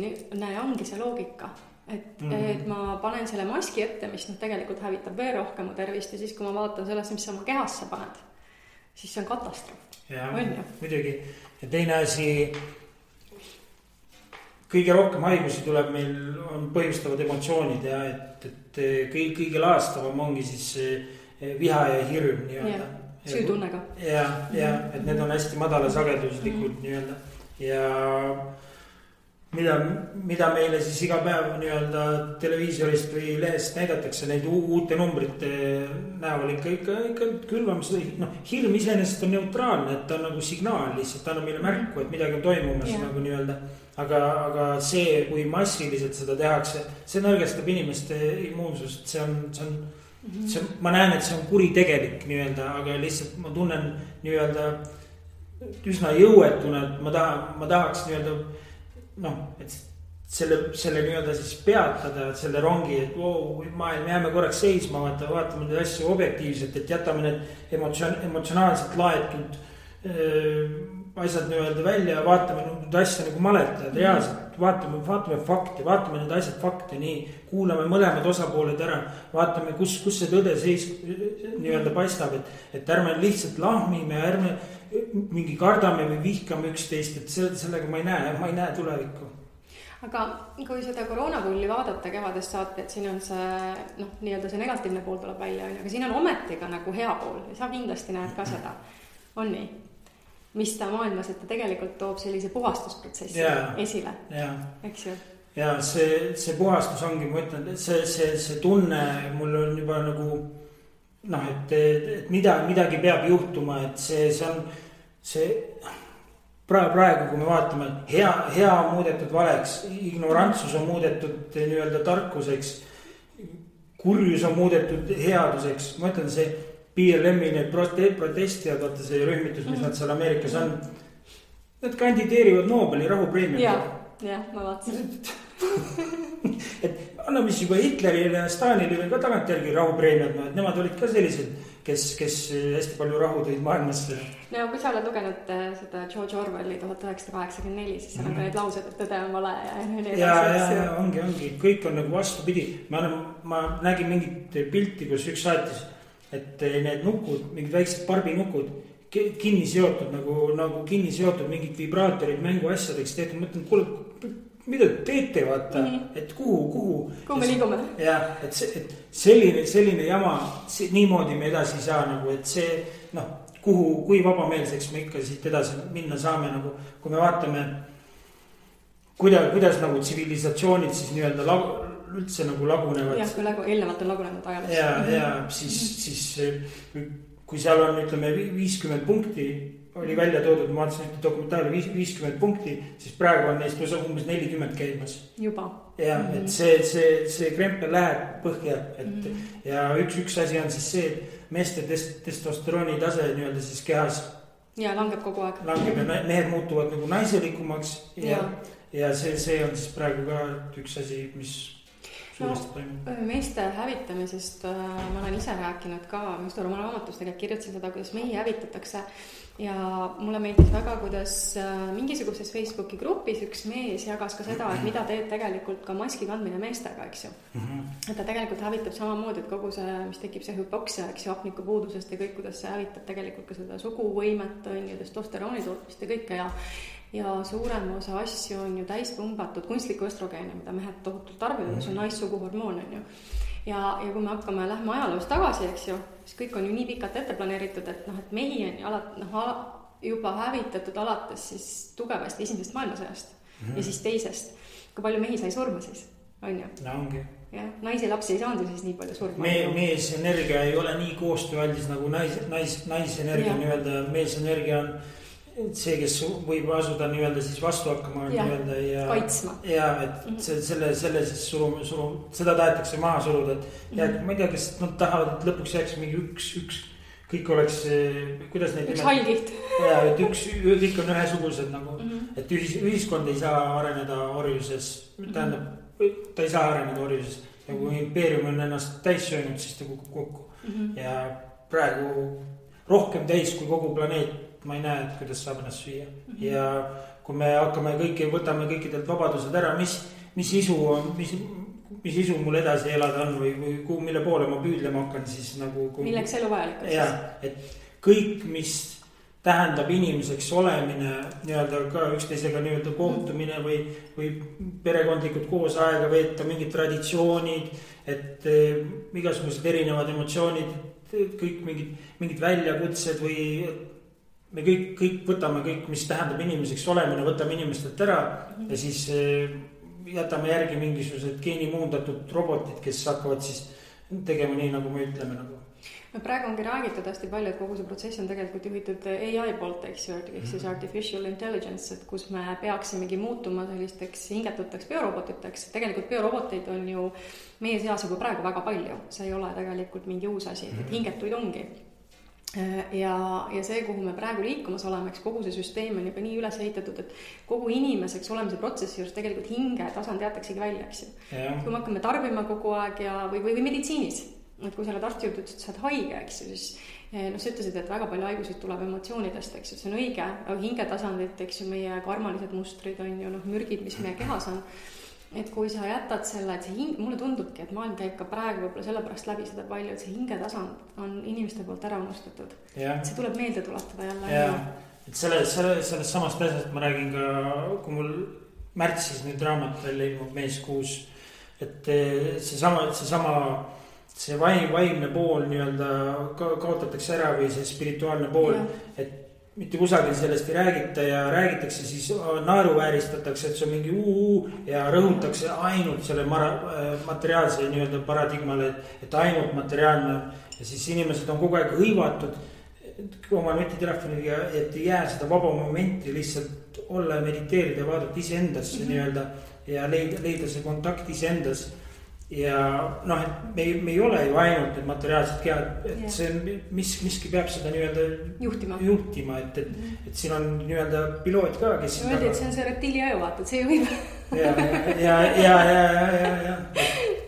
A: ongi see loogika, et ma panen selle maski ette, mis tegelikult hävitab veel rohkem mu tervist ja siis kui ma vaatan sellest, mis sa oma kehasse paned, siis see on katastroof.
B: Ja, muidugi. Ja teine asi, kõige rohkem haigusi tuleb meil, on põhjustavad emotsioonid ja et kõige laastavam ongi siis viha ja hirm nii-öelda.
A: Süütunnega.
B: Ja, et need on hästi madala sageduslikud nii-öelda. Ja mida meile siis iga päev nii-öelda televiisorist või lehest näidatakse neid uute numbrite näol ikka külvamas. Hirm iseenesest on neutraalne, et ta on nagu signaal lihtsalt, ta on meile märku, et midagi on toimumas nagu nii-öelda. Aga see, kui massiliselt seda tehakse, see nõrgestab inimeste immuunsust, see on, ma näen, et see on kuritegelik nii-öelda, aga lihtsalt ma tunnen nii-öelda üsna jõuetuna, et ma tahaks nii-öelda et selle nii-öelda siis peatada selle rongi, et maailm jääme korraks seisma, vaatame neid asju objektiivselt, et jätame need emotsionaalselt laetud asjad nii-öelda välja ja vaatame neid asja nagu maletajad reaalselt, vaatame fakti, vaatame need asjad fakti, nii kuulame mõlemad osapooled ära, vaatame, kus see tõde nii-öelda paistab, et ärme lihtsalt lahmime, ärme mingi kardame või vihkame üksteist, et sellega ma ei näe tulevikku.
A: Aga kui seda koroonapulli vaadata kevadest saate, et siin on see, nii-öelda see negatiivne pool tuleb välja, aga siin on ometiga nagu hea pool ja sa kindlasti näed ka seda, on nii? Mis ta maailmas, et ta tegelikult toob sellise puhastusprotsessi esile, eks ju? Ja
B: see puhastus ongi, ma ütlen, see tunne mul on juba nagu et midagi peab juhtuma, et see on praegu, kui me vaatame, hea on muudetud valeks, ignorantsus on muudetud nii-öelda tarkuseks, kurjus on muudetud headuseks, ma ütlen, see PLM-i need protestijad, vaata see rühmitus, mis nad seal Ameerikas on, nad kandideerivad Nobeli rahupreemia.
A: Ja, ma vaatasin.
B: Et anname siis juba Hitlerile ja Stalinile ka tagantjärgi rahupreemiad, et nemad olid ka sellised, kes hästi palju rahu tõid maailmasse.
A: No kui sa oled lugenud seda George Orwelli 1984, siis seal on ka need laused, et tõde on vale
B: ja ongi, kõik on nagu vastupidi. Ma nägin mingit pilti, kus üks saatis, et need nukud, mingid väiksed barbinukud kinni seotud, nagu kinni seotud mingid vibraatorid mänguasjadeks tehtud, mõtlen, kuule, mida teete, vaata, et kuhu
A: me liigume.
B: Ja, et selline jama, niimoodi me edasi ei saa nagu, et see, kui vabameelseks me ikka siit edasi minna saame, nagu, kui me vaatame, kuidas nagu tsivilisatsioonid siis nii-öelda üldse nagu lagunevad.
A: Jah, kui eelnevalt on lagunenud ajaliselt.
B: Ja siis kui seal on, ütleme, 50 punkti oli välja toodud, ma vaatasin ühte dokumentaali 50 punkti, siis praegu on neist umbes 40 käimas.
A: Juba.
B: Ja, et see krempel läheb põhja, ja üks asi on siis see, et meeste testosterooni tase nii-öelda siis kehas
A: Ja langeb kogu aeg.
B: Langeb ja mehed muutuvad nagu naiselikumaks ja see on siis praegu ka üks asi, mis suuresti toimub.
A: Meeste hävitamisest ma olen ise rääkinud ka, just oma raamatus tegelikult kirjutasin seda, kuidas mehi hävitatakse ja mulle meeldis väga, kuidas mingisuguses Facebooki grupis üks mees jagas ka seda, et mida teeb tegelikult ka maski kandmine meestega, eks ju. Et ta tegelikult hävitab samamoodi, et kogu see, mis tekib see hüpoksia, eks ju, hapnikupuudusest ja kõik, kuidas see hävitab tegelikult ka seda suguvõimet, on ju, testosterooni tootmist ja kõike ja suurem osa asju on ju täis pumbatud kunstlikku östrogeeni, mida mehed tohutult tarbivad, mis on naissuguhormoon, on ju. Ja kui me hakkame lähme ajaloos tagasi, eks ju, siis kõik on ju nii pikalt ette planeeritud, et et mehi on ju juba hävitatud alates siis tugevasti esimesest maailmasõjast ja siis teisest. Kui palju mehi sai surma siis, on ju?
B: No ongi.
A: Ja, naisi lapsi ei saanud siis nii palju surma.
B: Meesenergia ei ole nii koostööaldis nagu naisenergia nii-öelda. Meesenergia on see, kes võib asuda nii-öelda siis vastu hakkama
A: ja
B: kaitsma. Ja, et selle siis seda tahetakse maha suruda, et ma ei tea, kes nad tahavad, et lõpuks jääks mingi üks kõik oleks, kuidas neid
A: üks hallgiht.
B: Ja, et kõik on ühesugused nagu, et ühiskond ei saa areneda orjuses, tähendab, ta ei saa areneda orjuses ja kui impeerium on ennast täis söönud, siis ta kukub kokku ja praegu rohkem täis kui kogu planeet. Ma ei näe, et kuidas saab ennast süüa. Ja kui me hakkame võtame kõikidelt vabadused ära, mis isu mul edasi elada on või mille poole ma püüdlema hakkan, siis nagu...
A: Milleks elu vajalik on?
B: Ja, et kõik, mis tähendab inimeseks olemine, nii-öelda ka üksteisega nii-öelda kohtumine või perekondlikud koos aega veeta, mingid traditsioonid, et igasugused erinevad emotsioonid, kõik mingid väljakutsed või... Me kõik võtame kõik, mis tähendab inimeseks olemine, võtame inimestelt ära ja siis jätame järgi mingisugused geenimuundatud robotid, kes hakkavad siis tegema nii, nagu me ütleme nagu.
A: Praegu ongi räägitud hästi palju, et kogu see protsess on tegelikult juhitud AI poolt, eks ju, siis artificial intelligence, et kus me peaksimegi muutuma sellisteks hingetuteks biorobotiteks. Tegelikult bioroboteid on ju meie seas juba praegu väga palju, see ei ole tegelikult mingi uus asi, et hingetuid ongi. Ja see, kuhu me praegu liikumas oleme, eks kogu see süsteem on juba nii üles ehitatud, et kogu inimeseks olemise protsessi juures tegelikult hinge tasand jäetaksegi välja, eks ju. Kui me hakkame tarbima kogu aeg või meditsiinis, et kui sa oled arsti juurde, et sa oled haige, eks ju, siis sa ütlesid, et väga palju haigusid tuleb emotsioonidest, eks ju, see on õige, aga hinge tasandit, eks ju, meie karmalised mustrid on ju mürgid, mis meie kehas on. Et kui sa jätad selle, et see mulle tundubki, et maailm käib ka praegu võib-olla sellepärast läbi seda palju, et see hingetasand on inimeste poolt ära unustatud. See tuleb meelde tuletada jälle.
B: Ja, et sellest samast asjast ma räägin ka, kui mul märtsis nüüd raamat välja ilmub meeskuus, et see vaimne pool nii-öelda kaotatakse ära või see spirituaalne pool, et mitte kusagil sellest ei räägita ja räägitakse, siis naeruvääristatakse, et see on mingi ja rõhutakse ainult selle materiaalse nii-öelda paradigmale, et ainult materiaalne ja siis inimesed on kogu aeg hõivatud oma nutitelefoniga, et ei jää seda vaba momenti lihtsalt olla ja mediteerida ja vaadata iseendasse nii-öelda ja leida see kontakt iseendas. Ja et me ei ole ju ainult need materiaalsed kehad, et see on, miski peab seda nii-öelda juhtima, et siin on nii-öelda piloot ka, kes...
A: Öeldi, et see on see reptiiliaju, vaata, et see juhib.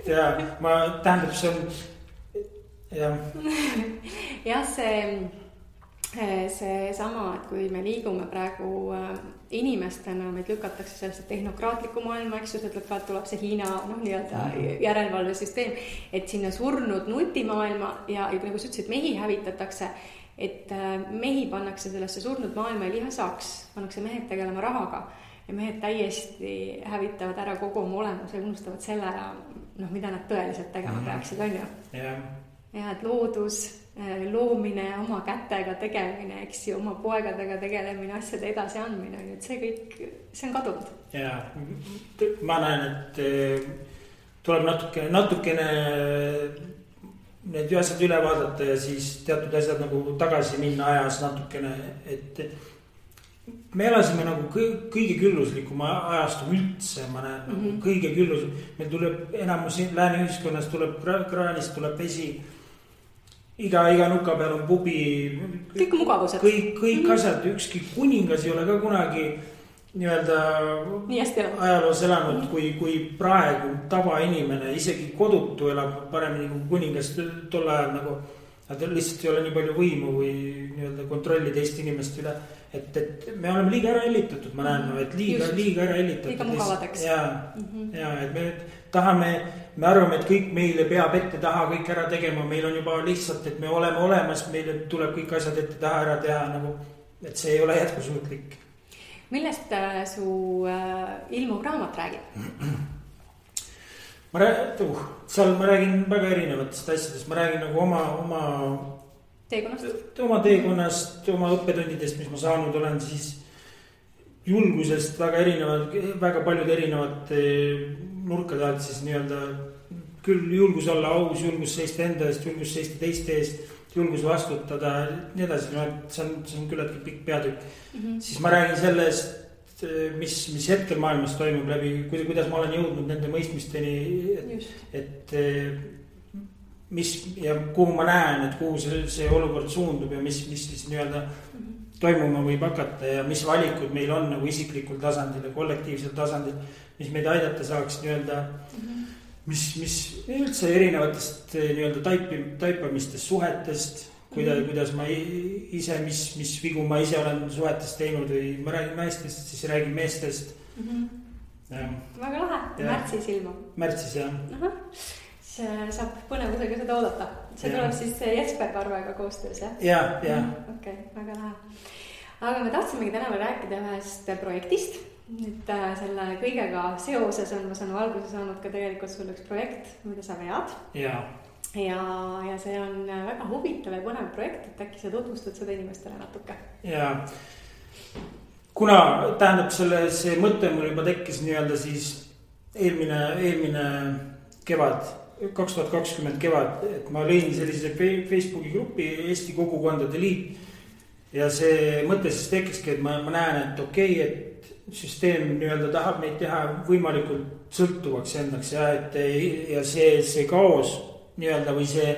B: Ja ma tähendab, see on...
A: Jah, see sama, et kui me liigume praegu inimestena, meid lükatakse sellesse tehnokraatliku maailma, eks ju, tuleb see Hiina nii-öelda järelevalvesüsteem, et sinna surnud nutimaailma ja nagu sa ütlesid, mehi hävitatakse, et mehi pannakse sellesse surnud maailma ja lihasaks, pannakse mehed tegelema rahaga ja mehed täiesti hävitavad ära kogu oma olemuse ja unustavad selle ära, mida nad tõeliselt tegema peaksid, on ju? Ja, et loodus, loomine, oma kätega tegemine, eks ju, oma poegadega tegelemine, asjade edasi andmine, et see kõik, see on kadunud.
B: Ja, ma näen, et tuleb natukene need asjad üle vaadata ja siis teatud asjad nagu tagasi minna ajas natukene, et me elasime nagu kõige külluslikuma ajastu üldse, ma näen, kõige küllus, meil tuleb enamus lääne ühiskonnas tuleb kraanist, tuleb vesi iga nuka peal on pubi.
A: Kõik mugavused.
B: Kõik asjad, ükski kuningas ei ole ka kunagi nii-öelda ajaloos elanud, kui praegu tavainimene, isegi kodutu elab paremini kui kuningas tol ajal nagu. Nad lihtsalt ei ole nii palju võimu või nii-öelda kontrolli teist inimest üle. Et me oleme liiga ära hellitatud, ma näen, et liiga ära hellitatud.
A: Liiga mugavadeks.
B: Ja, et me tahame, me arvame, et kõik meile peab ette taha kõik ära tegema. Meil on juba lihtsalt, et me oleme olemas, meile tuleb kõik asjad ette taha ära teha nagu, et see ei ole jätkusuutlik.
A: Millest su ilmuv raamat räägib?
B: Seal ma räägin väga erinevatest asjadest. Ma räägin nagu oma teekonnast, oma õppetundidest, mis ma saanud olen, siis julgusest väga paljud erinevad nurkade alt siis nii-öelda küll julgus olla aus, julgus seista enda eest, julgus seista teiste eest, julgus vastutada, nii edasi, see on küllaltki pikk peatükk. Siis ma räägin sellest, mis hetkel maailmas toimub läbi, kuidas ma olen jõudnud nende mõistmisteni, et ja kuhu ma näen, et kuhu see olukord suundub ja mis siis nii-öelda toimuma võib hakata ja mis valikud meil on nagu isiklikul tasandil ja kollektiivsel tasandil, mis meid aidata saaks nii-öelda, mis üldse erinevatest nii-öelda taipamistest, suhetest, kuidas ma ise, mis vigu ma ise olen suhetes teinud või ma räägin naistest, siis räägin meestest.
A: Väga lahe, märtsis ilmub.
B: Märtsis, jah.
A: See saab põnevusega seda oodata. See tuleb siis Jesper Parvega koostöös, jah?
B: Ja.
A: Okei, väga lahe. Aga me tahtsimegi täna veel rääkida ühest projektist. Nüüd selle kõigega seoses on, ma saan alguse saanud ka tegelikult sul üks projekt, mida sa vead. Ja see on väga huvitav ja põnev projekt, et äkki sa tutvustad seda inimestele natuke.
B: Ja kuna tähendab see mõte mul juba tekkis nii-öelda siis eelmine kevad, 2020 kevad, et ma lõin sellise Facebooki grupi Eesti Kogukondade Liit ja see mõte siis tekkiski, et ma näen, et okei, et süsteem nii-öelda tahab meid teha võimalikult sõltuvaks endaks ja see kaos nii-öelda või see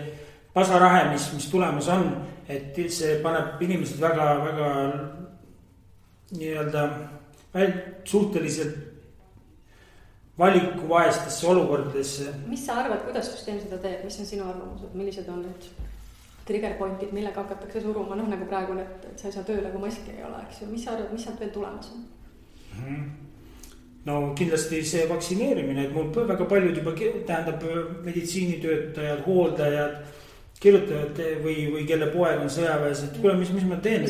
B: pasarahe, mis tulemas on, et see paneb inimesed väga nii-öelda suhteliselt valikuvaestesse olukordadesse.
A: Mis sa arvad, kuidas süsteem seda teeb, mis on sinu arvamused, millised on need trigger pointid, millega hakatakse suruma, nagu praegu, et sa ei saa tööle, kui maski ei ole, eks ju, mis sa arvad, mis sealt veel tulemas on?
B: No kindlasti see vaktsineerimine, et mul väga paljud juba tähendab meditsiinitöötajad, hooldajad, kirjutajad või kelle poeg on sõjaväes, et kuule, mis ma teen?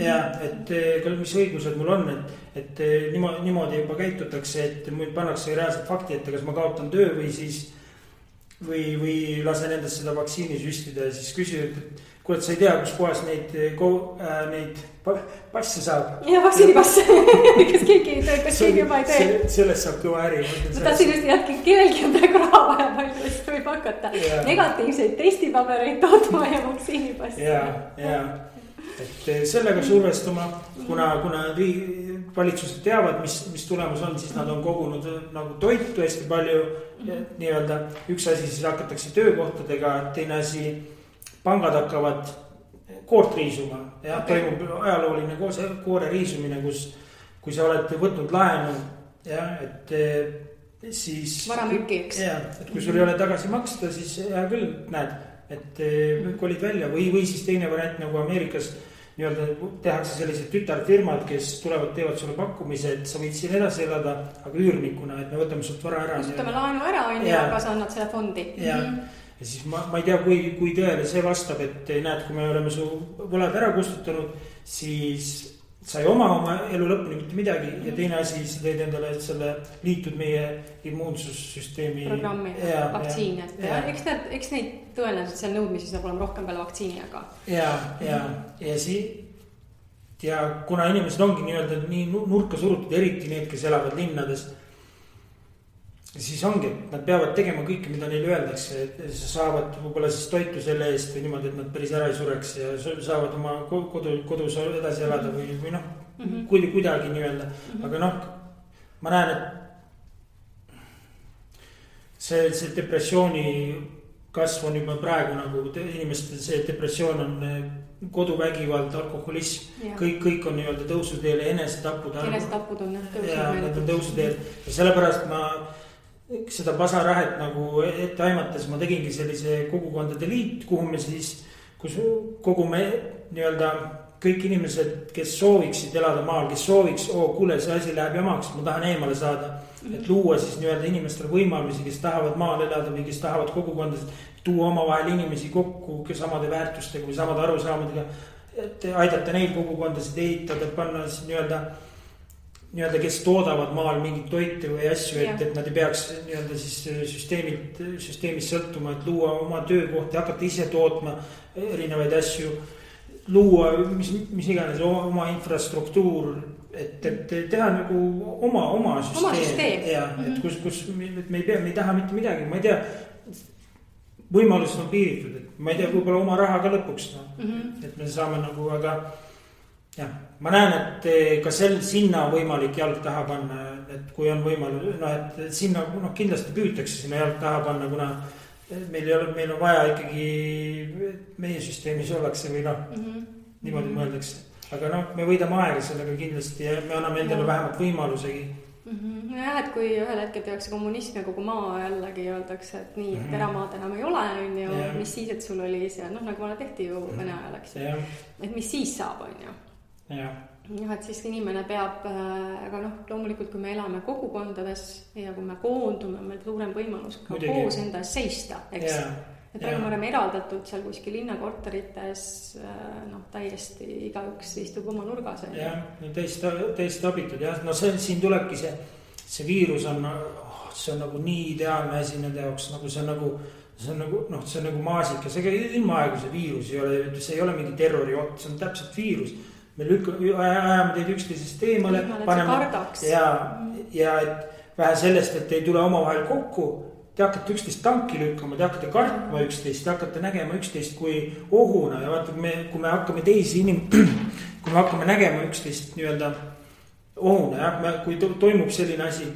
B: Ja, et mis õigused mul on, et niimoodi juba käitutakse, et mul pannakse reaalselt fakti, et kas ma kaotan töö või siis või lasen endast seda vaktsiini süstida ja siis küsivad, et kuule, sa ei tea, kus kohas neid passe saab.
A: Ja vaktsiinipasse, kas keegi juba ei tee.
B: Sellest saab kõva äri.
A: Ma tahtsin just jätki, kellelgi on praegu raha vaja palju, siis võib hakata negatiivseid testipabereid tootma ja vaktsiinipassi.
B: Ja, et sellega survestama, kuna valitsused teavad, mis tulemus on, siis nad on kogunud nagu toitu hästi palju nii-öelda. Üks asi siis hakatakse töökohtadega, teine asi pangad hakkavad koort riisuma ja toimub ajalooline koore riisumine, kui sa oled võtnud laenu ja et siis
A: varamüüki, eks.
B: Ja, et kui sul ei ole tagasi maksta, siis hea küll, näed, et kolid välja või siis teine variant nagu Ameerikas nii-öelda tehakse sellised tütarfirmad, kes tulevad, teevad sulle pakkumise, et sa võid siin edasi elada, aga üürnikuna, et me võtame sult vara ära.
A: Võtame laenu ära, aga sa annad selle fondi.
B: Ja siis ma ei tea, kui tõele see vastab, et näed, kui me oleme su võlad ära kustutanud, siis sa ei oma elu lõpuni mitte midagi ja teine asi, sa teed endale selle liitud meie immuunsussüsteemi
A: programmi, vaktsiin, et eks neid tõenäoliselt seal nõudmisi saab olema rohkem peale vaktsiini, aga
B: ja kuna inimesed ongi nii-öelda nii nurka surutud, eriti need, kes elavad linnades, siis ongi, nad peavad tegema kõike, mida neile öeldakse, et saavad võib-olla siis toitu selle eest või niimoodi, et nad päris ära ei sureks ja saavad oma kodus edasi elada või kuidagi nii-öelda. Aga ma näen, et see depressiooni kasv on juba praegu nagu inimestel see depressioon on koduvägivald, alkoholism, kõik on nii-öelda tõusuteel ja enesetapud
A: on
B: tõusuteel ja sellepärast ma seda pasarahet nagu ette aimates ma tegingi sellise kogukondade liit, kuhu me siis, kus kogume nii-öelda kõik inimesed, kes sooviksid elada maal, kes sooviks, kuule, see asi läheb jamaks, ma tahan eemale saada. Et luua siis nii-öelda inimestele võimalusi, kes tahavad maal elada või kes tahavad kogukondasid, tuua omavahel inimesi kokku samade väärtustega või samade arusaamadega, et aidata neid kogukondasid ehitada, panna siis nii-öelda, kes toodavad maal mingit toite või asju, et nad ei peaks nii-öelda siis süsteemist sõltuma, et luua oma töökohti, hakata ise tootma erinevaid asju, luua mis iganes oma infrastruktuur, et teha nagu oma süsteem. Ja, et kus me ei taha mitte midagi, ma ei tea, võimalused on piiritud, et ma ei tea, võib-olla oma raha ka lõpuks, et me saame nagu, aga jah, ma näen, et ka sinna võimalik jalg taha panna, et kui on võimalus, et sinna kindlasti püütakse sinna jalg taha panna, kuna meil on vaja ikkagi meie süsteemis ollakse või niimoodi mõeldakse. Aga me võidame aega sellega kindlasti ja me anname endale vähemalt võimalusegi.
A: Jah, et kui ühel hetkel tehakse kommunism ja kogu maa jällegi öeldakse, et nii, et eramaad enam ei ole, mis siis, et sul oli see, nagu vana tehti ju Vene ajal, eks. Et mis siis saab, on ju. Jah, et siis inimene peab, aga loomulikult kui me elame kogukondades ja kui me koondume, meil suurem võimalus ka koos enda seista, eks. Et praegu me oleme eraldatud seal kuskil linnakorterites, täiesti igaüks istub oma nurgas.
B: Jah, täiesti abitud, jah. Siin tulebki see viirus on, see on nagu nii ideaalne asi nende jaoks, nagu see on nagu maasika, see ilma aegu see viirus ei ole, see ei ole mingi terroriot, see on täpselt viirus. Me ajame teid üksteisest eemale, ja et vähe sellest, et ei tule omavahel kokku, te hakkate üksteist tanki lükkama, te hakkate kartma üksteist, te hakkate nägema üksteist kui ohuna ja vaata, kui me hakkame kui me hakkame nägema üksteist nii-öelda ohuna, kui toimub selline asi,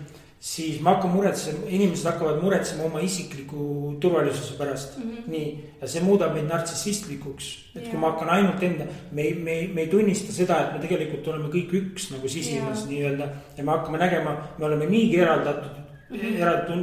B: siis me hakkame muretsema, inimesed hakkavad muretsema oma isikliku turvalisuse pärast. Nii, ja see muudab meid nartsissistlikuks, et kui ma hakkan ainult enda, me ei tunnista seda, et me tegelikult oleme kõik üks nagu sisimas nii-öelda ja me hakkame nägema, me oleme niigi eraldatud,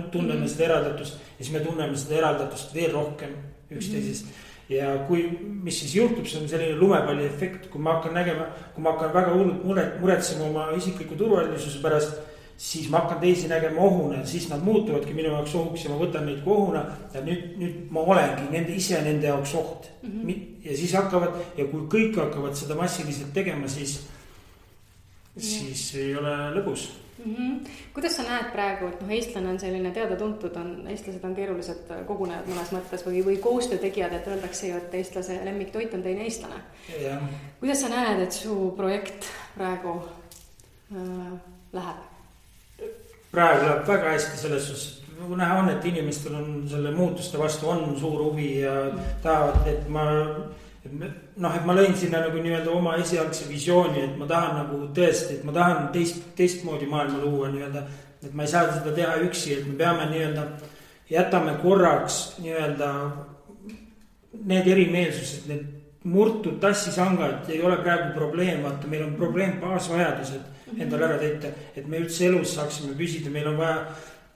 B: tunneme seda eraldatust ja siis me tunneme seda eraldatust veel rohkem üksteisest. Ja mis siis juhtub, see on selline lumepalli efekt, kui ma hakkan nägema, kui ma hakkan väga hullult muretsema oma isikliku turvalisuse pärast, siis ma hakkan teisi nägema ohuna, siis nad muutuvadki minu jaoks ohuks ja ma võtan neid kui ohuna ja nüüd ma olengi ise nende jaoks oht. Ja siis hakkavad, ja kui kõik hakkavad seda massiliselt tegema, siis ei ole lõbus.
A: Kuidas sa näed praegu, et eestlane on selline teada-tuntud, eestlased on keerulised kogunejad mõnes mõttes või koostöötegijad, et öeldakse ju, et eestlase lemmiktoit on teine eestlane. Kuidas sa näed, et su projekt praegu läheb?
B: Praegu läheb väga hästi selles suhtes, näha on, et inimestel on selle muutuste vastu on suur huvi ja tahavad, et ma lõin sinna nagu nii-öelda oma esialgse visiooni, et ma tahan nagu tõesti, et ma tahan teistmoodi maailma luua nii-öelda, et ma ei saa seda teha üksi, et me peame nii-öelda, jätame korraks nii-öelda need erimeelsused, need murtud tassisangad ei ole praegu probleem, vaata meil on probleem baasvajadused endale ära täita, et me üldse elus saaksime püsida, meil on vaja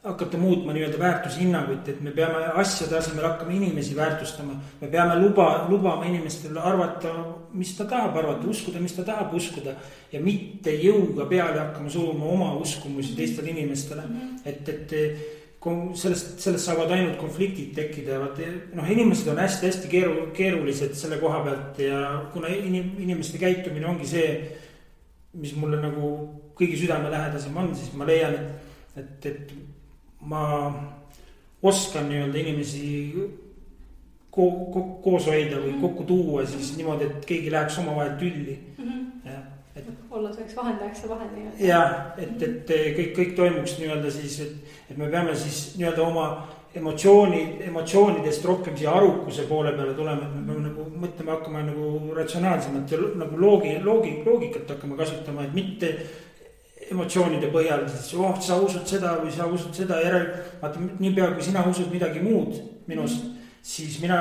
B: hakata muutma nii-öelda väärtushinnanguid, et me peame asjade asemel hakkama inimesi väärtustama. Me peame lubama inimestele arvata, mis ta tahab arvata, uskuda, mis ta tahab uskuda ja mitte jõuga peale hakkama suruma oma uskumusi teistele inimestele. Et sellest saavad ainult konfliktid tekkida. Inimesed on hästi keerulised selle koha pealt ja kuna inimeste käitumine ongi see, mis mulle nagu kõigi südamelähedasem on, siis ma leian, et ma oskan nii-öelda inimesi koos hoida või kokku tuua siis niimoodi, et keegi läheks oma vahel tülli.
A: Olla selleks vahendajaks ja vahel.
B: Jah, et kõik toimuks nii-öelda siis, et me peame siis nii-öelda oma emotsioonidest rohkem siia arukuse poole peale tulema, et me peame nagu mõtlema hakkama nagu ratsionaalsemalt ja nagu loogikat hakkama kasutama, et mitte emotsioonide põhjal, siis sa usud seda või sa usud seda järel, vaata niipea kui sina usud midagi muud minust, siis mina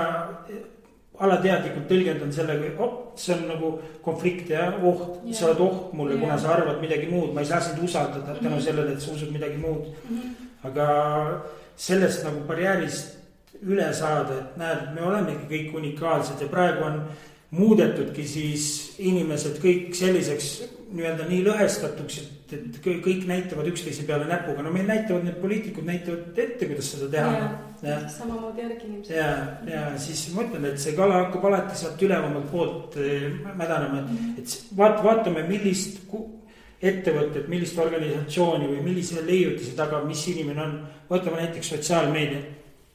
B: alateadlikult tõlgendan sellega, see on nagu konflikt ja oht, sa oled oht mulle, kuna sa arvad midagi muud, ma ei saa sind usaldada tänu sellele, et sa usud midagi muud. Aga sellest nagu barjäärist üle saada, et näed, me olemegi kõik unikaalsed ja praegu on muudetudki siis inimesed kõik selliseks nii-öelda nii lõhestatuks, et kõik näitavad üksteise peale näpuga. No meil näitavad, need poliitikud näitavad ette, kuidas seda teha.
A: Samamoodi järgi inimesed.
B: Ja siis ma ütlen, et see kala hakkab alati sealt ülevamalt poolt mädanema, et vaatame, millist ettevõtet, millist organisatsiooni või millise leiutise taga, mis inimene on. Võtame näiteks sotsiaalmeedia.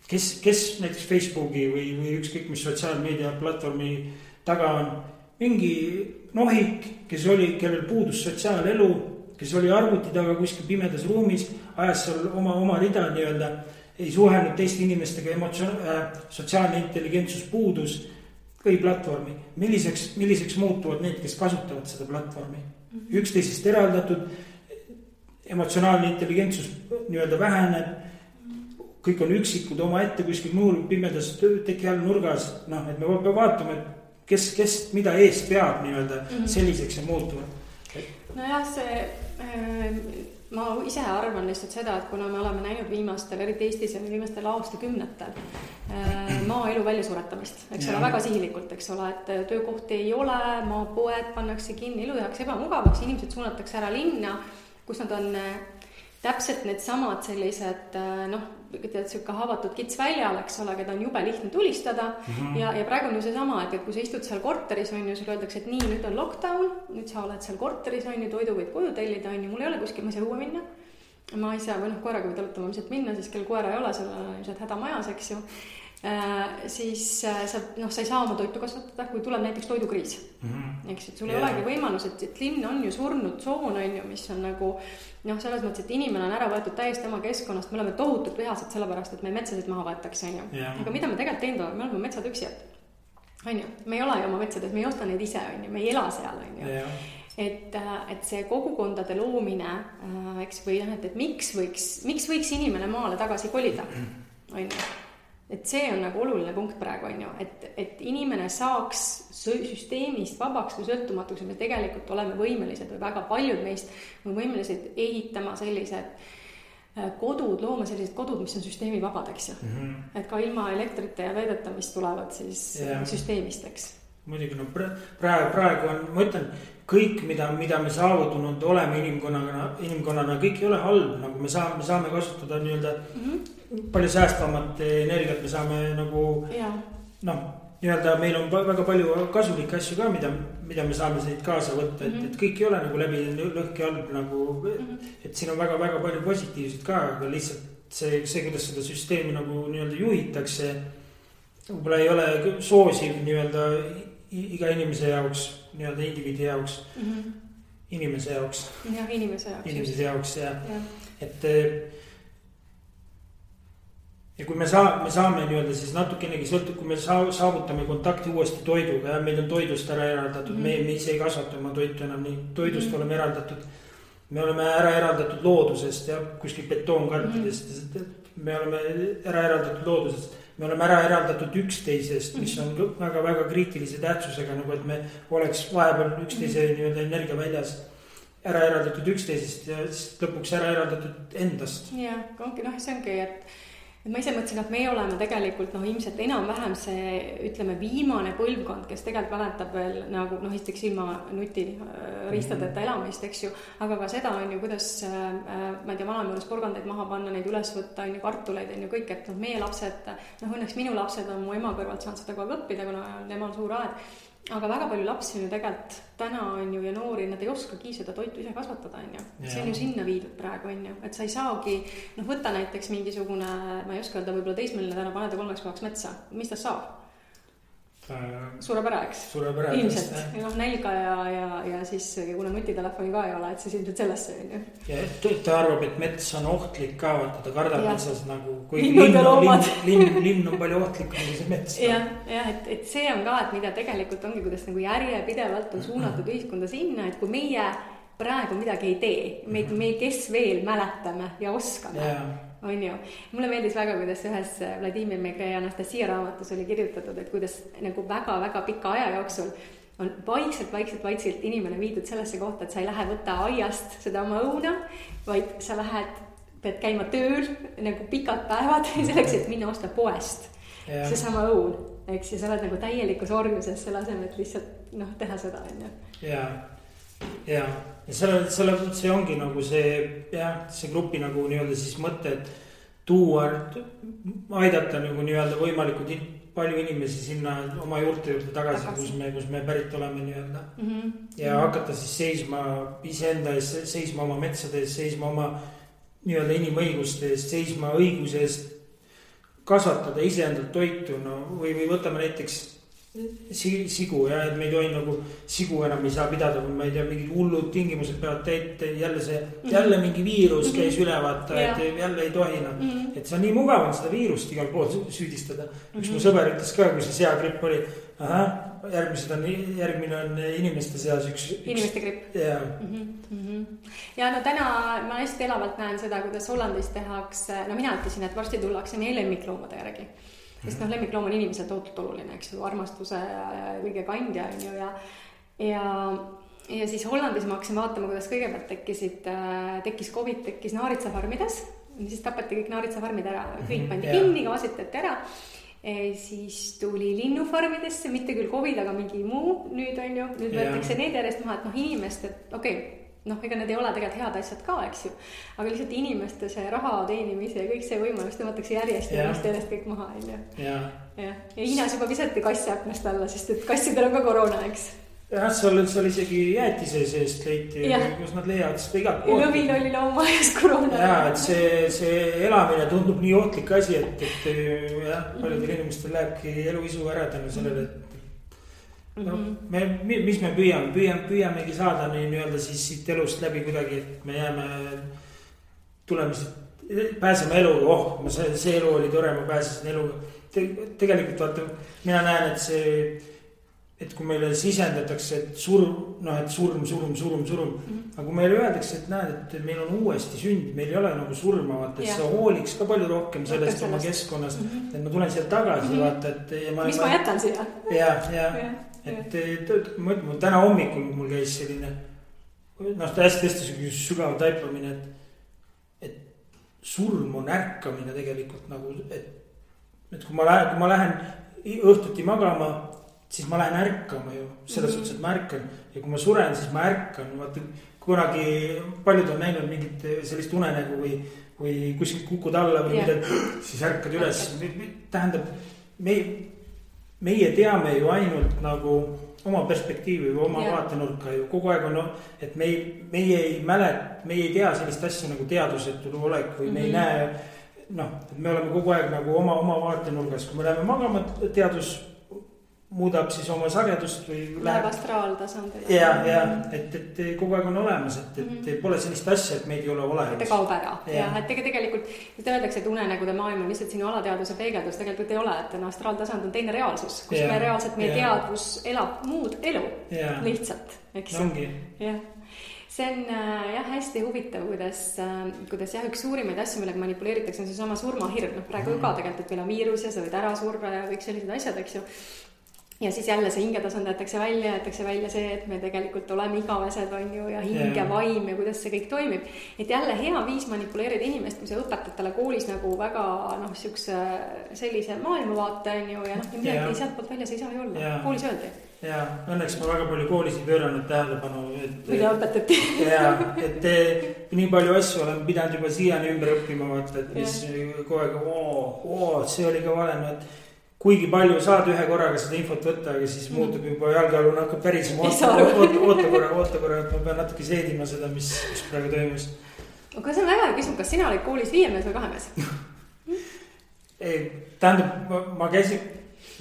B: Kes näiteks Facebooki või ükskõik mis sotsiaalmeedia platvormi taga on mingi nohik, kellel puudus sotsiaalelu, kes oli arvuti taga kuskil pimedas ruumis, ajas seal oma rida nii-öelda, ei suhelnud teiste inimestega, sotsiaalne intelligentsus puudus, või platvormi. Milliseks muutuvad need, kes kasutavad seda platvormi? Üksteisest eraldatud, emotsionaalne intelligentsus nii-öelda väheneb, kõik on üksikud oma ette kuskil muul pimedas teki all nurgas, et me peame vaatama, et kes mida eest peab nii-öelda selliseks ja muutuvad.
A: Nojah, ma ise arvan lihtsalt seda, et kuna me oleme näinud viimastel, eriti Eestis ja viimastel aastakümnetel maaelu väljasuretamist, eks ole, väga sihilikult, eks ole, et töökohti ei ole, maapoed pannakse kinni, elu tehakse ebamugavaks, inimesed suunatakse ära linna, kus nad on täpselt need samad sellised, siuke haavatud kits väljal, eks ole, keda on jube lihtne tulistada ja praegu on ju see sama, et kui sa istud seal korteris, on ju, sul öeldakse, et nii, nüüd on lockdown, nüüd sa oled seal korteris, on ju, toidu võid koju tellida, on ju, mul ei ole kuskil, ma ei saa õue minna, ma ei saa, või koeraga võid alutama minna, siis kell koera ei ole, sul on ilmselt häda majas, eks ju. Siis sa ei saa oma toitu kasvatada, kui tuleb näiteks toidukriis. Eks, et sul ei olegi võimalus, et linn on ju surnud tsoon, on ju, mis on nagu selles mõttes, et inimene on ära võetud täiesti oma keskkonnast, me oleme tohutult vihased sellepärast, et me metsasid maha võetakse, on ju. Aga mida me tegelikult teinud oleme, me oleme metsatüksijad, on ju, me ei ole ju oma metsades, me ei osta neid ise, on ju, me ei ela seal, on ju. Et see kogukondade loomine, eks, või et miks võiks inimene maale tagasi kolida, on ju. Et see on nagu oluline punkt praegu, on ju, et inimene saaks süsteemist vabaks või sõltumatuks, me tegelikult oleme võimelised või väga paljud meist on võimelised ehitama sellised kodud, looma sellised kodud, mis on süsteemi vabad, eks ju. Et ka ilma elektrite ja veedeta, mis tulevad siis süsteemist, eks.
B: Muidugi, praegu on, ma ütlen, kõik, mida me saavutanud oleme inimkonnana, kõik ei ole halb, nagu me saame kasutada nii-öelda palju säästvamat energiat, me saame nagu, nii-öelda meil on väga palju kasulikke asju ka, mida me saame siit kaasa võtta, et kõik ei ole nagu läbi lõhki halb nagu, et siin on väga palju positiivset ka, aga lihtsalt see, kuidas seda süsteemi nagu nii-öelda juhitakse, võib-olla ei ole soosiv nii-öelda iga inimese jaoks, nii-öelda indiviidi jaoks, inimese jaoks.
A: Jah, inimese
B: jaoks, et ja kui me saame nii-öelda siis natukenegi sõltub, kui me saavutame kontakti uuesti toiduga ja meil on toidust ära eraldatud, me ise ei kasvata oma toitu enam nii, toidust oleme eraldatud, me oleme ära eraldatud loodusest ja kuskil betoonkarpidest, me oleme ära eraldatud loodusest, me oleme ära eraldatud üksteisest, mis on väga kriitilise tähtsusega, nagu et me oleks vahepeal üksteise nii-öelda energia väljas ära eraldatud üksteisest ja lõpuks ära eraldatud endast.
A: Ja, see ongi, et ma ise mõtlesin, et meie oleme tegelikult ilmselt enam-vähem see, ütleme, viimane põlvkond, kes tegelikult mäletab veel nagu, esiteks ilma nutiriistadeta elamist, eks ju, aga ka seda on ju, kuidas, ma ei tea, vanameeles porgandeid maha panna, neid üles võtta, on ju, kartuleid, on ju, kõik, et meie lapsed, õnneks minu lapsed on mu ema kõrvalt saanud seda kogu aeg õppida, kuna temal suur aed. Aga väga palju lapsi on ju tegelikult täna on ju ja noori, nad ei oskagi seda toitu ise kasvatada, on ju. See on ju sinna viidud praegu, on ju. Et sa ei saagi, võtta näiteks mingisugune, ma ei oska öelda, võib-olla teismeline täna paneda 3 päevaks metsa. Mis ta saab? Suure pere, eks? Ilmselt. Nälga ja siis, kuna nutitelefoni ka ei ole, et siis ilmselt sellesse on ju.
B: Ja ta arvab, et mets on ohtlik ka, ta kardab metsas nagu, kui linn on palju ohtlikum kui see mets.
A: Et see on ka, et mida tegelikult ongi, kuidas nagu järjepidevalt on suunatud ühiskonda sinna, et kui meie praegu midagi ei tee. Me kes veel mäletame ja oskame, on ju. Mulle meeldis väga, kuidas ühes Vladimir Megre ja Anastasia raamatus oli kirjutatud, et kuidas nagu väga-väga pika aja jooksul on vaikselt inimene viidud sellesse kohta, et sa ei lähe võtta aiast seda oma õuna, vaid sa pead käima tööl nagu pikad päevad selleks, et minna osta poest seesama õun, eks, ja sa oled nagu täielikus orjuses selle asemel, et lihtsalt teha seda, on ju.
B: Ja see ongi nagu see grupi nagu nii-öelda siis mõte, et tuua, aidata nagu nii-öelda võimalikult palju inimesi sinna oma juurte juurde tagasi. Kus me pärit oleme nii-öelda. Ja hakata siis seisma iseenda ees, seisma oma metsade ees, seisma oma nii-öelda inimõiguste eest, seisma õiguse eest kasvatada iseendalt toitu, või võtame näiteks sigu, et me ei tohi nagu sigu enam ei saa pidada, kui ma ei tea, mingid hullud tingimused peavad jälle mingi viirus käis üle vaata, et jälle ei tohi et see on nii mugav on seda viirust igal pool süüdistada. Üks mu sõber ütles ka, kui see seagripp oli, järgmine on inimeste seas
A: inimeste gripp. Ja täna ma hästi elavalt näen seda, kuidas Hollandis tehakse, mina ütlesin, et varsti tullakse meie lemmikloomade järgi. Sest lemmikloom on inimesel tohutult oluline, eks ju, armastuse ja kõige kandja, on ju, ja siis Hollandis ma hakkasin vaatama, kuidas kõigepealt tekkis COVID, tekkis naaritsafarmides, siis tapati kõik naaritsafarmid ära, kõik pandi kinni, gaasitati ära, siis tuli linnufarmidesse, mitte küll COVID, aga mingi muu nüüd, on ju, nüüd võetakse need järjest maha, et inimest, et ega need ei ole tegelikult head asjad ka, eks ju, aga lihtsalt inimeste see raha teenimise ja kõik see võimalus tõmmatakse järjest kõik maha, on ju. Ja Hiinas juba visati kassi aknast alla, sest et kassidel on ka koroona, eks.
B: Jah, seal isegi jäätise seest leiti, kus nad leiavad seda igalt poolt.
A: Lõvil oli loomaajas koroona.
B: Ja, et see elamine tundub nii ootlik asi, et paljudel inimestel lähebki eluisu ära tänu sellele, et mis me püüamegi saada nii-öelda siis siit elust läbi kuidagi, et me jääme pääseme eluga, see elu oli tore, ma pääsesin eluga. Tegelikult vaata, mina näen, et kui meile sisendatakse, et surm, aga kui meile öeldakse, et näed, et meil on uuesti sünd, meil ei ole nagu surma, vaata, et sa hooliks ka palju rohkem sellest oma keskkonnast, et ma tulen siia tagasi, vaata, et
A: mis ma jätan siia?
B: Et ma täna hommikul mul käis selline hästi sügav taipamine, et surm on ärkamine tegelikult nagu, et kui ma lähen õhtuti magama, siis ma lähen ärkama ju, selles suhtes, et ma ärkan, ja kui ma suren, siis ma ärkan, vaata kunagi paljud on näinud mingit sellist unenägu või kuskilt kukud alla või midagi, siis ärkad üles, tähendab meie teame ju ainult nagu oma perspektiivi või oma vaatenurka ju kogu aeg on, et meie ei tea sellist asja nagu teadusetu olek või me ei näe, et me oleme kogu aeg nagu oma vaatenurgas, kui me läheme magama, teadus muudab siis oma sagedust või
A: läheb astraaltasandile.
B: Et kogu aeg on olemas, et pole sellist asja, et meid ei ole olemas.
A: Ta kaob ära. Et tegelikult öeldakse, et unenägude maailm on lihtsalt sinu alateaduse peegeldus, tegelikult ei ole, et astraaltasand on teine reaalsus, kus me reaalselt meie teadvus elab muud elu lihtsalt, eks.
B: Ongi.
A: See on hästi huvitav, kuidas üks suurimaid asju, millega manipuleeritakse, on see sama surmahirm. Praegu ka tegelikult, et meil on viirus ja sa võid ära surra ja kõik sellised asjad, eks ju. Ja siis jälle see hingetasand jätakse välja see, et me tegelikult oleme igavesed, on ju, ja hinge vaim ja kuidas see kõik toimib. Et jälle hea viis manipuleerida inimest, kui sa õpetad talle koolis nagu väga sellise maailmavaate, on ju, ja midagi sealt poolt väljas ei saa ju olla. Koolis öeldi.
B: Ja õnneks ma väga palju koolis ei pööranud tähelepanu.
A: Mida õpetati.
B: Et nii palju asju olen pidanud juba siiani ümber õppima, vaata, et mis kogu aeg, see oli ka vale, et kuigi palju saad ühe korraga seda infot võtta, aga siis muutub juba jalgealune hakkab pärisema. Oota korra, et ma pean natuke seedima seda, mis praegu toimus.
A: Aga see on väga küsimus, kas sina olid koolis 5 mees või 2 mees?
B: Tähendab, ma käisin,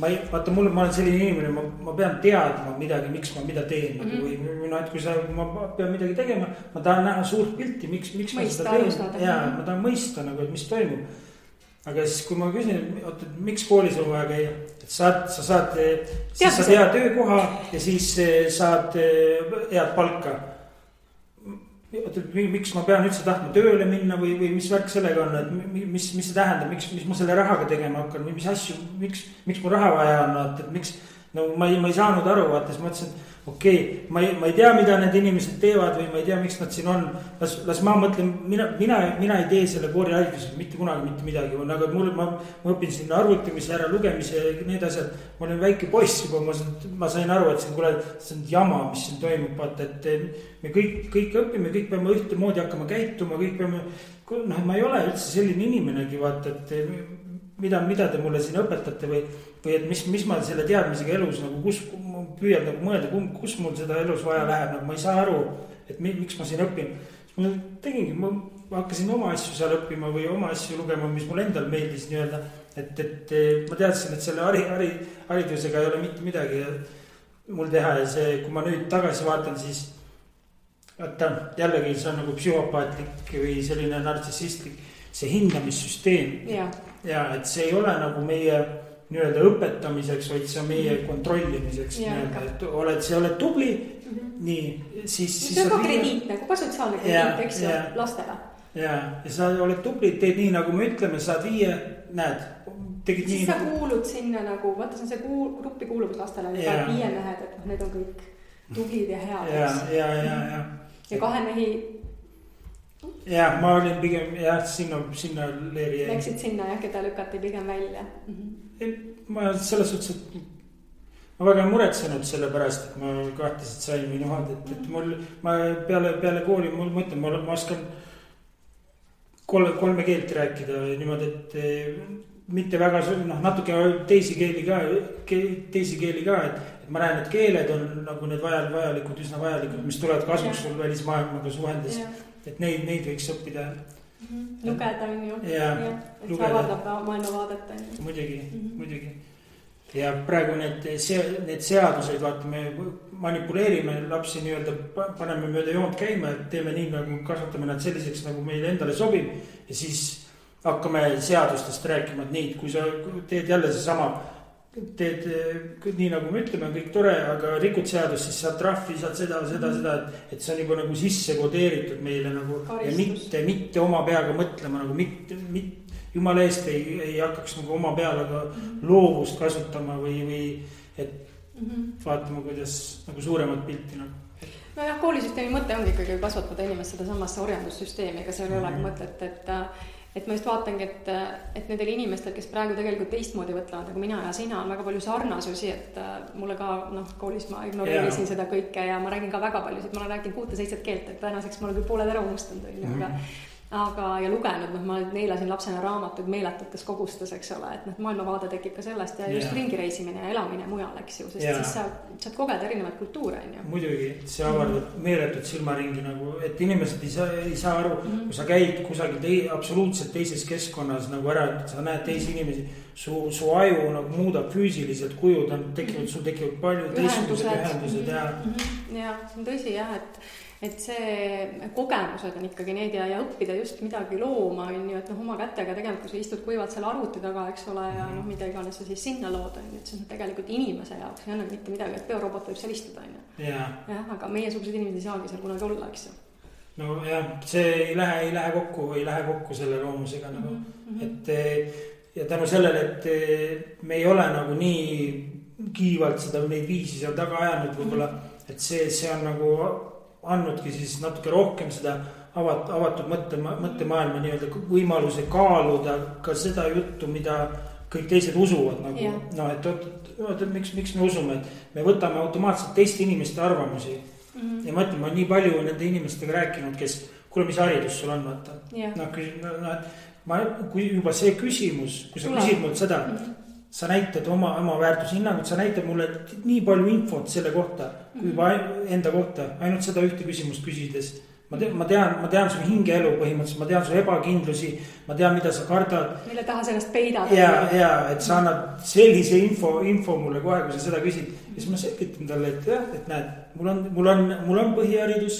B: ma olen selline inimene, ma pean teadma midagi, miks ma mida teen. Või et kui ma pean midagi tegema, ma tahan näha suurt pilti, miks ma seda teen. Ma tahan mõista, et mis toimub. Aga siis, kui ma küsin, miks koolis on vaja käia, et sa saad hea töökoha ja siis saad head palka. miks ma pean üldse tahtma tööle minna või mis värk sellega on, et mis see tähendab, miks ma selle rahaga tegema hakkan või mis asju, miks mul raha vaja on, et miks, no ma ei saanud aru, vaata, siis mõtlesin, okei, ma ei tea, mida need inimesed teevad või ma ei tea, miks nad siin on. Las ma mõtlen, mina ei tee selle kooriharidusega mitte kunagi mitte midagi. Aga ma õpin siin arvutamise, ära lugemise ja need asjad. Ma olen väike poiss juba, ma sain aru, et see on jama, mis siin toimub. Vaata, et me kõik õpime, kõik peame ühtemoodi hakkama käituma, kõik peame, ma ei ole üldse selline inimenegi, vaata, et mida te mulle siin õpetate või et mis ma selle teadmisega elus nagu püüan nagu mõelda, kus mul seda elus vaja läheb, nagu ma ei saa aru, et miks ma siin õpin. Ma tegingi, ma hakkasin oma asju seal õppima või oma asju lugema, mis mul endal meeldis nii-öelda, et ma teadsin, et selle haridusega ei ole mitte midagi mul teha ja see, kui ma nüüd tagasi vaatan, siis jällegi see on nagu psühhopaatlik või selline nartsissistlik, see hindamissüsteem ja et see ei ole nagu meie nii-öelda õpetamiseks, vaid see on meie kontrollimiseks, et sa oled tubli, nii, siis
A: see on ka krediit, nagu ka sotsiaalne krediit, eks ju, lastele.
B: Ja sa oled tubli, teed nii, nagu me ütleme, saad 5, näed, tegid
A: siis
B: nii.
A: Siis sa kuulud sinna nagu, vaata see on see gruppi kuuluvus lastele, 5 mehed, et need on kõik tublid ja head. Ja 2 mehi.
B: Ja ma olin pigem sinna leeri.
A: Läksid sinna keda lükati pigem välja.
B: Ma selles suhtes, et ma väga muretsenud selle pärast, et ma kahtlaselt sain või nohad, et ma peale kooli, ma ütlen, ma oskan 3 keelt rääkida niimoodi, et mitte väga, natuke teisi keeli ka, et ma näen, et keeled on nagu need vajalikud, üsna vajalikud, mis tulevad kasuks sul välismaailmaga suhendes, et neid võiks õppida.
A: Lugeda on ju, et see avaldab maailmavaadet.
B: Muidugi. Ja praegu need seaduseid, vaata, me manipuleerime lapsi nii-öelda, paneme mööda joont käima, et teeme nii, nagu kasvatame nad selliseks, nagu meile endale sobib. Ja siis hakkame seadustest rääkima, et nii, kui sa teed jälle seesama, teed nii nagu me ütleme, kõik tore, aga rikud seadust, siis saad trahvi, saad seda, et see on juba nagu sisse kodeeritud meile nagu karistus. Ja mitte oma peaga mõtlema nagu jumala eest ei hakkaks nagu oma peale aga loovust kasutama või et vaatama, kuidas nagu suuremat pilti nagu.
A: Nojah, koolisüsteemi mõte ongi ikkagi kasvatada inimest seda samasse orjandussüsteemi, ega seal ei olegi mõtet, et ma just vaatangi, et nendel inimestel, kes praegu tegelikult teistmoodi võtlevad, nagu mina ja sina, on väga palju sarnasusi, et mulle ka, koolis ma ignoreerisin seda kõike ja ma räägin ka väga paljusid, ma olen rääkinud 6-7 keelt, et tänaseks ma olen küll pooled ära unustanud, aga ja lugenud, ma neelasin lapsena raamatuid meeletutes kogustes, eks ole, et maailmavaade tekib ka sellest ja just ringireisimine ja elamine mujal, eks ju, sest siis saad kogeda erinevaid kultuure, on ju.
B: Muidugi, see avardab meeletut silmaringi nagu, et inimesed ei saa aru, kui sa käid kusagil absoluutselt teises keskkonnas nagu ära, sa näed teisi inimesi, su aju nagu muudab füüsiliselt kujud, sul tekivad palju ühendused
A: ja see on tõsi jah, et see kogemused on ikkagi need ja õppida just midagi looma, on ju, et oma kätega tegelikult, kui sa istud kuivalt selle arvuti taga, eks ole, ja mida iganes sa siis sinna lood, on ju, et see on tegelikult inimese jaoks, ei anna mitte midagi, et biorobot võib seal istuda, on ju. Jah, aga meie suguseid inimesed ei saagi seal kunagi olla, eks ju.
B: No jah, see ei lähe kokku selle loomusega nagu, et ja tänu sellele, et me ei ole nagu nii kiivalt seda neid viisi seal taga ajanud võib-olla, et see on nagu andnudki siis natuke rohkem seda avatud mõttemaailma nii-öelda võimaluse kaaluda ka seda juttu, mida kõik teised usuvad nagu, et miks me usume, et me võtame automaatselt teiste inimeste arvamusi ja ma ütlen, ma olen nii palju nende inimestega rääkinud, kes, kuule, mis haridus sul on, vaata, kui juba see küsimus, kui sa küsid mult seda, sa näitad oma väärtushinnangut, sa näitad mulle nii palju infot selle kohta, kui juba enda kohta, ainult seda ühte küsimust küsides. Ma tean su hingeelu põhimõtteliselt, ma tean su ebakindlusi, ma tean, mida sa kardad.
A: Mille taha sellest peidad.
B: Ja, et sa annad sellise info mulle kohe, kui sa seda küsid. Ja siis ma selgitan talle, et jah, et näed, mul on põhiharidus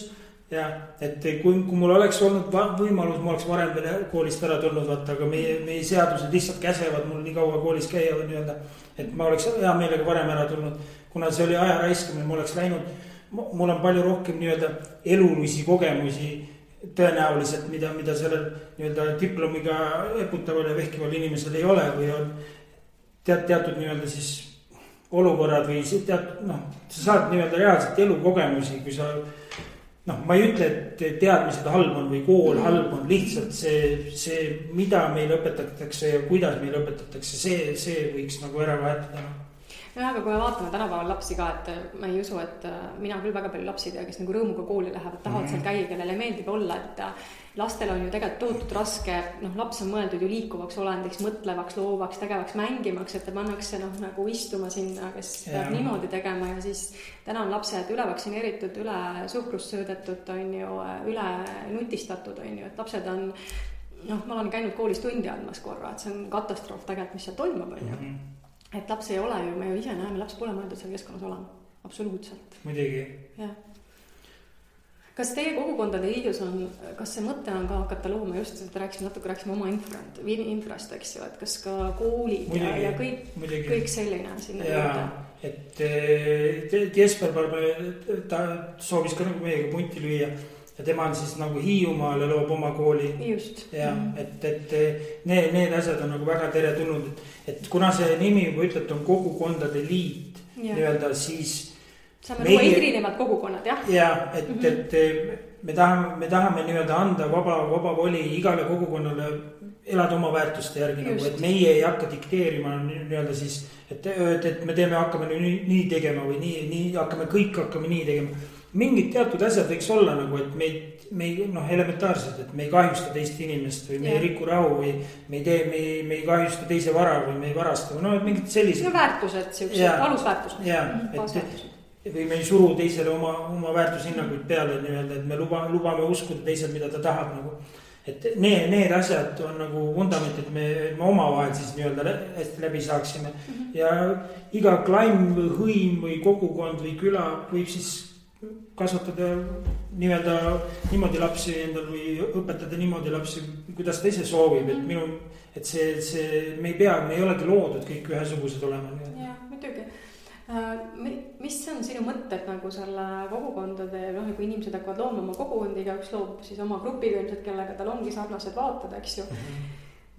B: ja et kui mul oleks olnud võimalus, ma oleks varem veel koolist ära tulnud, vaata, aga meie seadused lihtsalt käsevad mul nii kaua koolis käia või nii-öelda, et ma oleks hea meelega varem ära tulnud, kuna see oli aja raiskamine, ma oleks läinud mul on palju rohkem nii-öelda elulisi kogemusi tõenäoliselt, mida sellel nii-öelda diplomiga eputaval ja vehkival inimesel ei ole või on teatud nii-öelda siis olukorrad või sa saad nii-öelda reaalselt elukogemusi, kui sa ma ei ütle, et teadmised halb on või kool halb on, lihtsalt see, mida meil õpetatakse ja kuidas meil õpetatakse, see võiks nagu ära vahetada.
A: Jah, aga kui me vaatame tänapäeval lapsi ka, et ma ei usu, et mina küll väga palju lapsi tea, kes nagu rõõmuga kooli lähevad, tahavad seal käia, kellele meeldib olla, et lastel on ju tegelikult tohutult raske, laps on mõeldud ju liikuvaks olendiks, mõtlevaks, loovaks, tegevaks, mängimaks, et ta pannakse nagu istuma sinna, kes peab niimoodi tegema ja siis täna on lapsed üle vaktsineeritud, üle suhkrust söödetud, on ju, üle nutistatud, on ju, et lapsed on, ma olen käinud koolis tundi andmas korra, et see on katastroof tegelikult, mis seal toimub, on ju. Et laps ei ole ju, me ju ise näeme, laps pole mõeldud seal keskkonnas olema, absoluutselt.
B: Muidugi.
A: Jah. Kas teie kogukondade liidus on, kas see mõte on ka hakata looma just, et rääkisime oma infrast, eks ju, et kas ka koolid muidugi, ja kõik selline sinna juurde?
B: Et Jesper ta soovis ka nagu meiega punti lüüa ja tema on siis nagu Hiiumaal ja loob oma kooli.
A: Just.
B: Ja, et need asjad on nagu väga teretulnud, et kuna see nimi juba ütleb, on kogukondade liit nii-öelda, siis
A: saame luua erinevad kogukonnad, jah?
B: Ja, et me tahame nii-öelda anda vaba voli igale kogukonnale elada oma väärtuste järgi, nagu, et meie ei hakka dikteerima nii-öelda siis, et me hakkame nii tegema või nii hakkame nii tegema. Mingid teatud asjad võiks olla nagu, et me elementaarselt, et me ei kahjusta teist inimest või me ei riku rahu või me ei kahjusta teise vara või me ei varasta või mingid sellised.
A: Väärtused, siuksed alusväärtused.
B: Või me ei suru teisele oma väärtushinnaguid peale nii-öelda, et me lubame uskuda teisel, mida ta tahab nagu. Et need asjad on nagu vundament, et me omavahel siis nii-öelda hästi läbi saaksime. Ja iga klaim või hõim või kogukond või küla võib siis kasvatada nii-öelda niimoodi lapsi endal või õpetada niimoodi lapsi, kuidas ta ise soovib, et me ei olegi loodud kõik ühesugused olema.
A: Jah, muidugi. Mis on sinu mõtted nagu selle kogukondade, kui inimesed hakkavad looma oma kogukondiga, üks loob siis oma grupiga ilmselt, kellega tal ongi sarnased vaated, eks ju.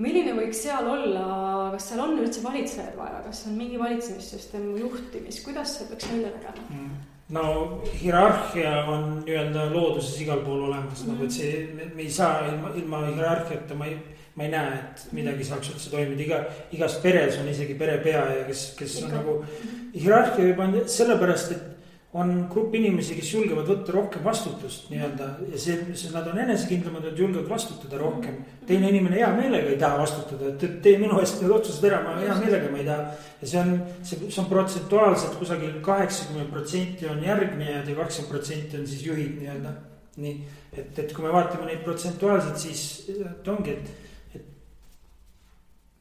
A: Milline võiks seal olla, kas seal on üldse valitsejad vaja, kas on mingi valitsemissüsteem juhtimis, kuidas see peaks välja nägema?
B: No hierarhia on nii-öelda looduses igal pool olemas, nagu et see, me ei saa ilma hierarhiata, ma ei näe, et midagi saaks üldse toimida, igas peres on isegi perepea ja kes on nagu hierarhia juba on sellepärast, et on grupp inimesi, kes julgevad võtta rohkem vastutust nii-öelda ja see nad on enesekindlamad, et julgevad vastutada rohkem. Teine inimene hea meelega ei taha vastutada, et tee minu eest need otsused ära, ma hea meelega ma ei taha. Ja see on protsentuaalselt kusagil 80% on järgnejad ja 20% on siis juhid nii-öelda. Nii, et kui me vaatame neid protsentuaalselt, siis ongi, et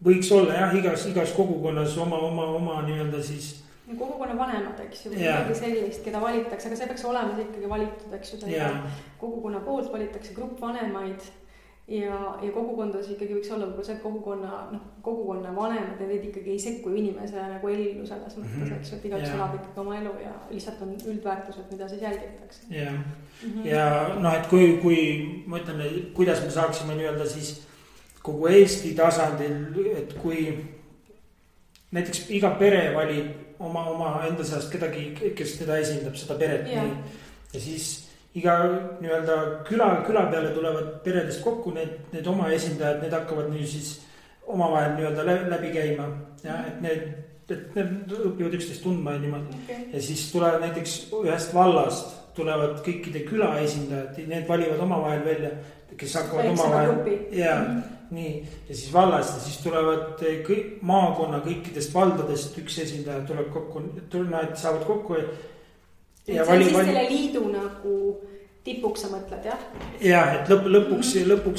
B: võiks olla jah, igas kogukonnas oma nii-öelda siis
A: kogukonna vanemad, eks ju, midagi sellist, keda valitakse, aga see peaks olema ikkagi valitud, eks ju, kogukonna poolt valitakse grupp vanemaid ja kogukondades ikkagi võiks olla see kogukonna vanemad ja neid ikkagi ei sekku inimese nagu ellu selles mõttes, eks ju, et igaüks elab ikkagi oma elu ja lihtsalt on üldväärtused, mida siis jälgitakse.
B: Ja et kui ma ütlen, kuidas me saaksime nii-öelda siis kogu Eesti tasandil, et kui näiteks iga pere valib oma enda seast kedagi, kes teda esindab, seda peret nii. Ja siis iga nii-öelda küla peale tulevad peredest kokku need oma esindajad, need hakkavad nii siis omavahel nii-öelda läbi käima. Ja, et need õpivad üksteist tundma ja niimoodi. Ja siis tulevad näiteks ühest vallast, tulevad kõikide küla esindajad, need valivad omavahel välja, kes hakkavad omavahel. Nii, ja siis vallast ja siis tulevad maakonna kõikidest valdadest üks esindaja tuleb kokku, nad saavad kokku
A: ja see on selle liidu nagu tipuks sa mõtled, jah?
B: Jah, et lõpuks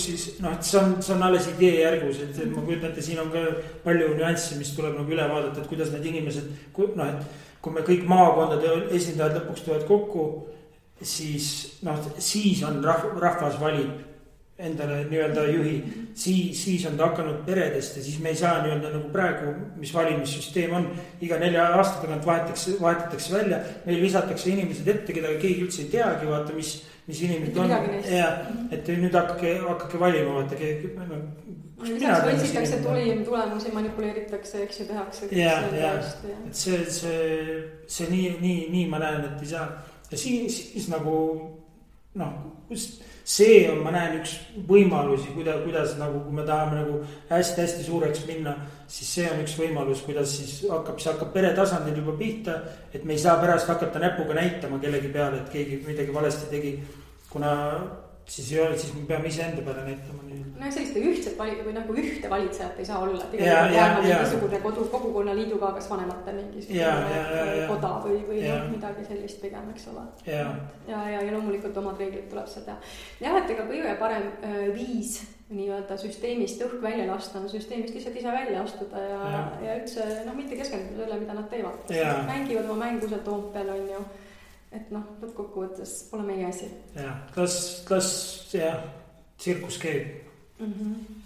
B: siis, et see on alles idee järgus, et ma kujutan, et siin on ka palju nüansse, mis tuleb nagu üle vaadata, et kuidas need inimesed, et kui me kõik maakondade esindajad lõpuks tulevad kokku, siis on rahvas valib endale nii-öelda juhi, siis on ta hakanud peredest ja siis me ei saa nii-öelda nagu praegu, mis valimissüsteem on, iga 4 aasta tagant vahetatakse välja, meil visatakse inimesed ette, keda keegi üldse ei teagi, vaata, mis inimesed on. Ja, et nüüd hakake valima, vaata,
A: võtsitakse tulemusi, manipuleeritakse, eks ju, tehakse.
B: Et see nii ma näen, et ei saa. Ja siis nagu, see on, ma näen üks võimalusi, kuidas nagu, kui me tahame nagu hästi suureks minna, siis see on üks võimalus, kuidas siis hakkab pere tasandil juba pihta, et me ei saa pärast hakata näpuga näitama kellegi peale, et keegi midagi valesti tegi, kuna siis ei ole, siis me peame ise enda peale näitama.
A: No selliste ühte valitsejat ei saa olla. Mingisugune kogukonnaliiduga, kas vanemate mingisugune koda või midagi sellist pigem, eks ole. Ja loomulikult omad reeglid tuleb seda teha. Jah, et ega kõige parem viis nii-öelda süsteemist õhk välja lasta on süsteemist lihtsalt ise välja astuda ja üldse mitte keskenduda selle, mida nad teevad. Mängivad oma mängu seal Toompeal on ju. Et lõppkokkuvõttes pole meie asi.
B: Las tsirkus käib.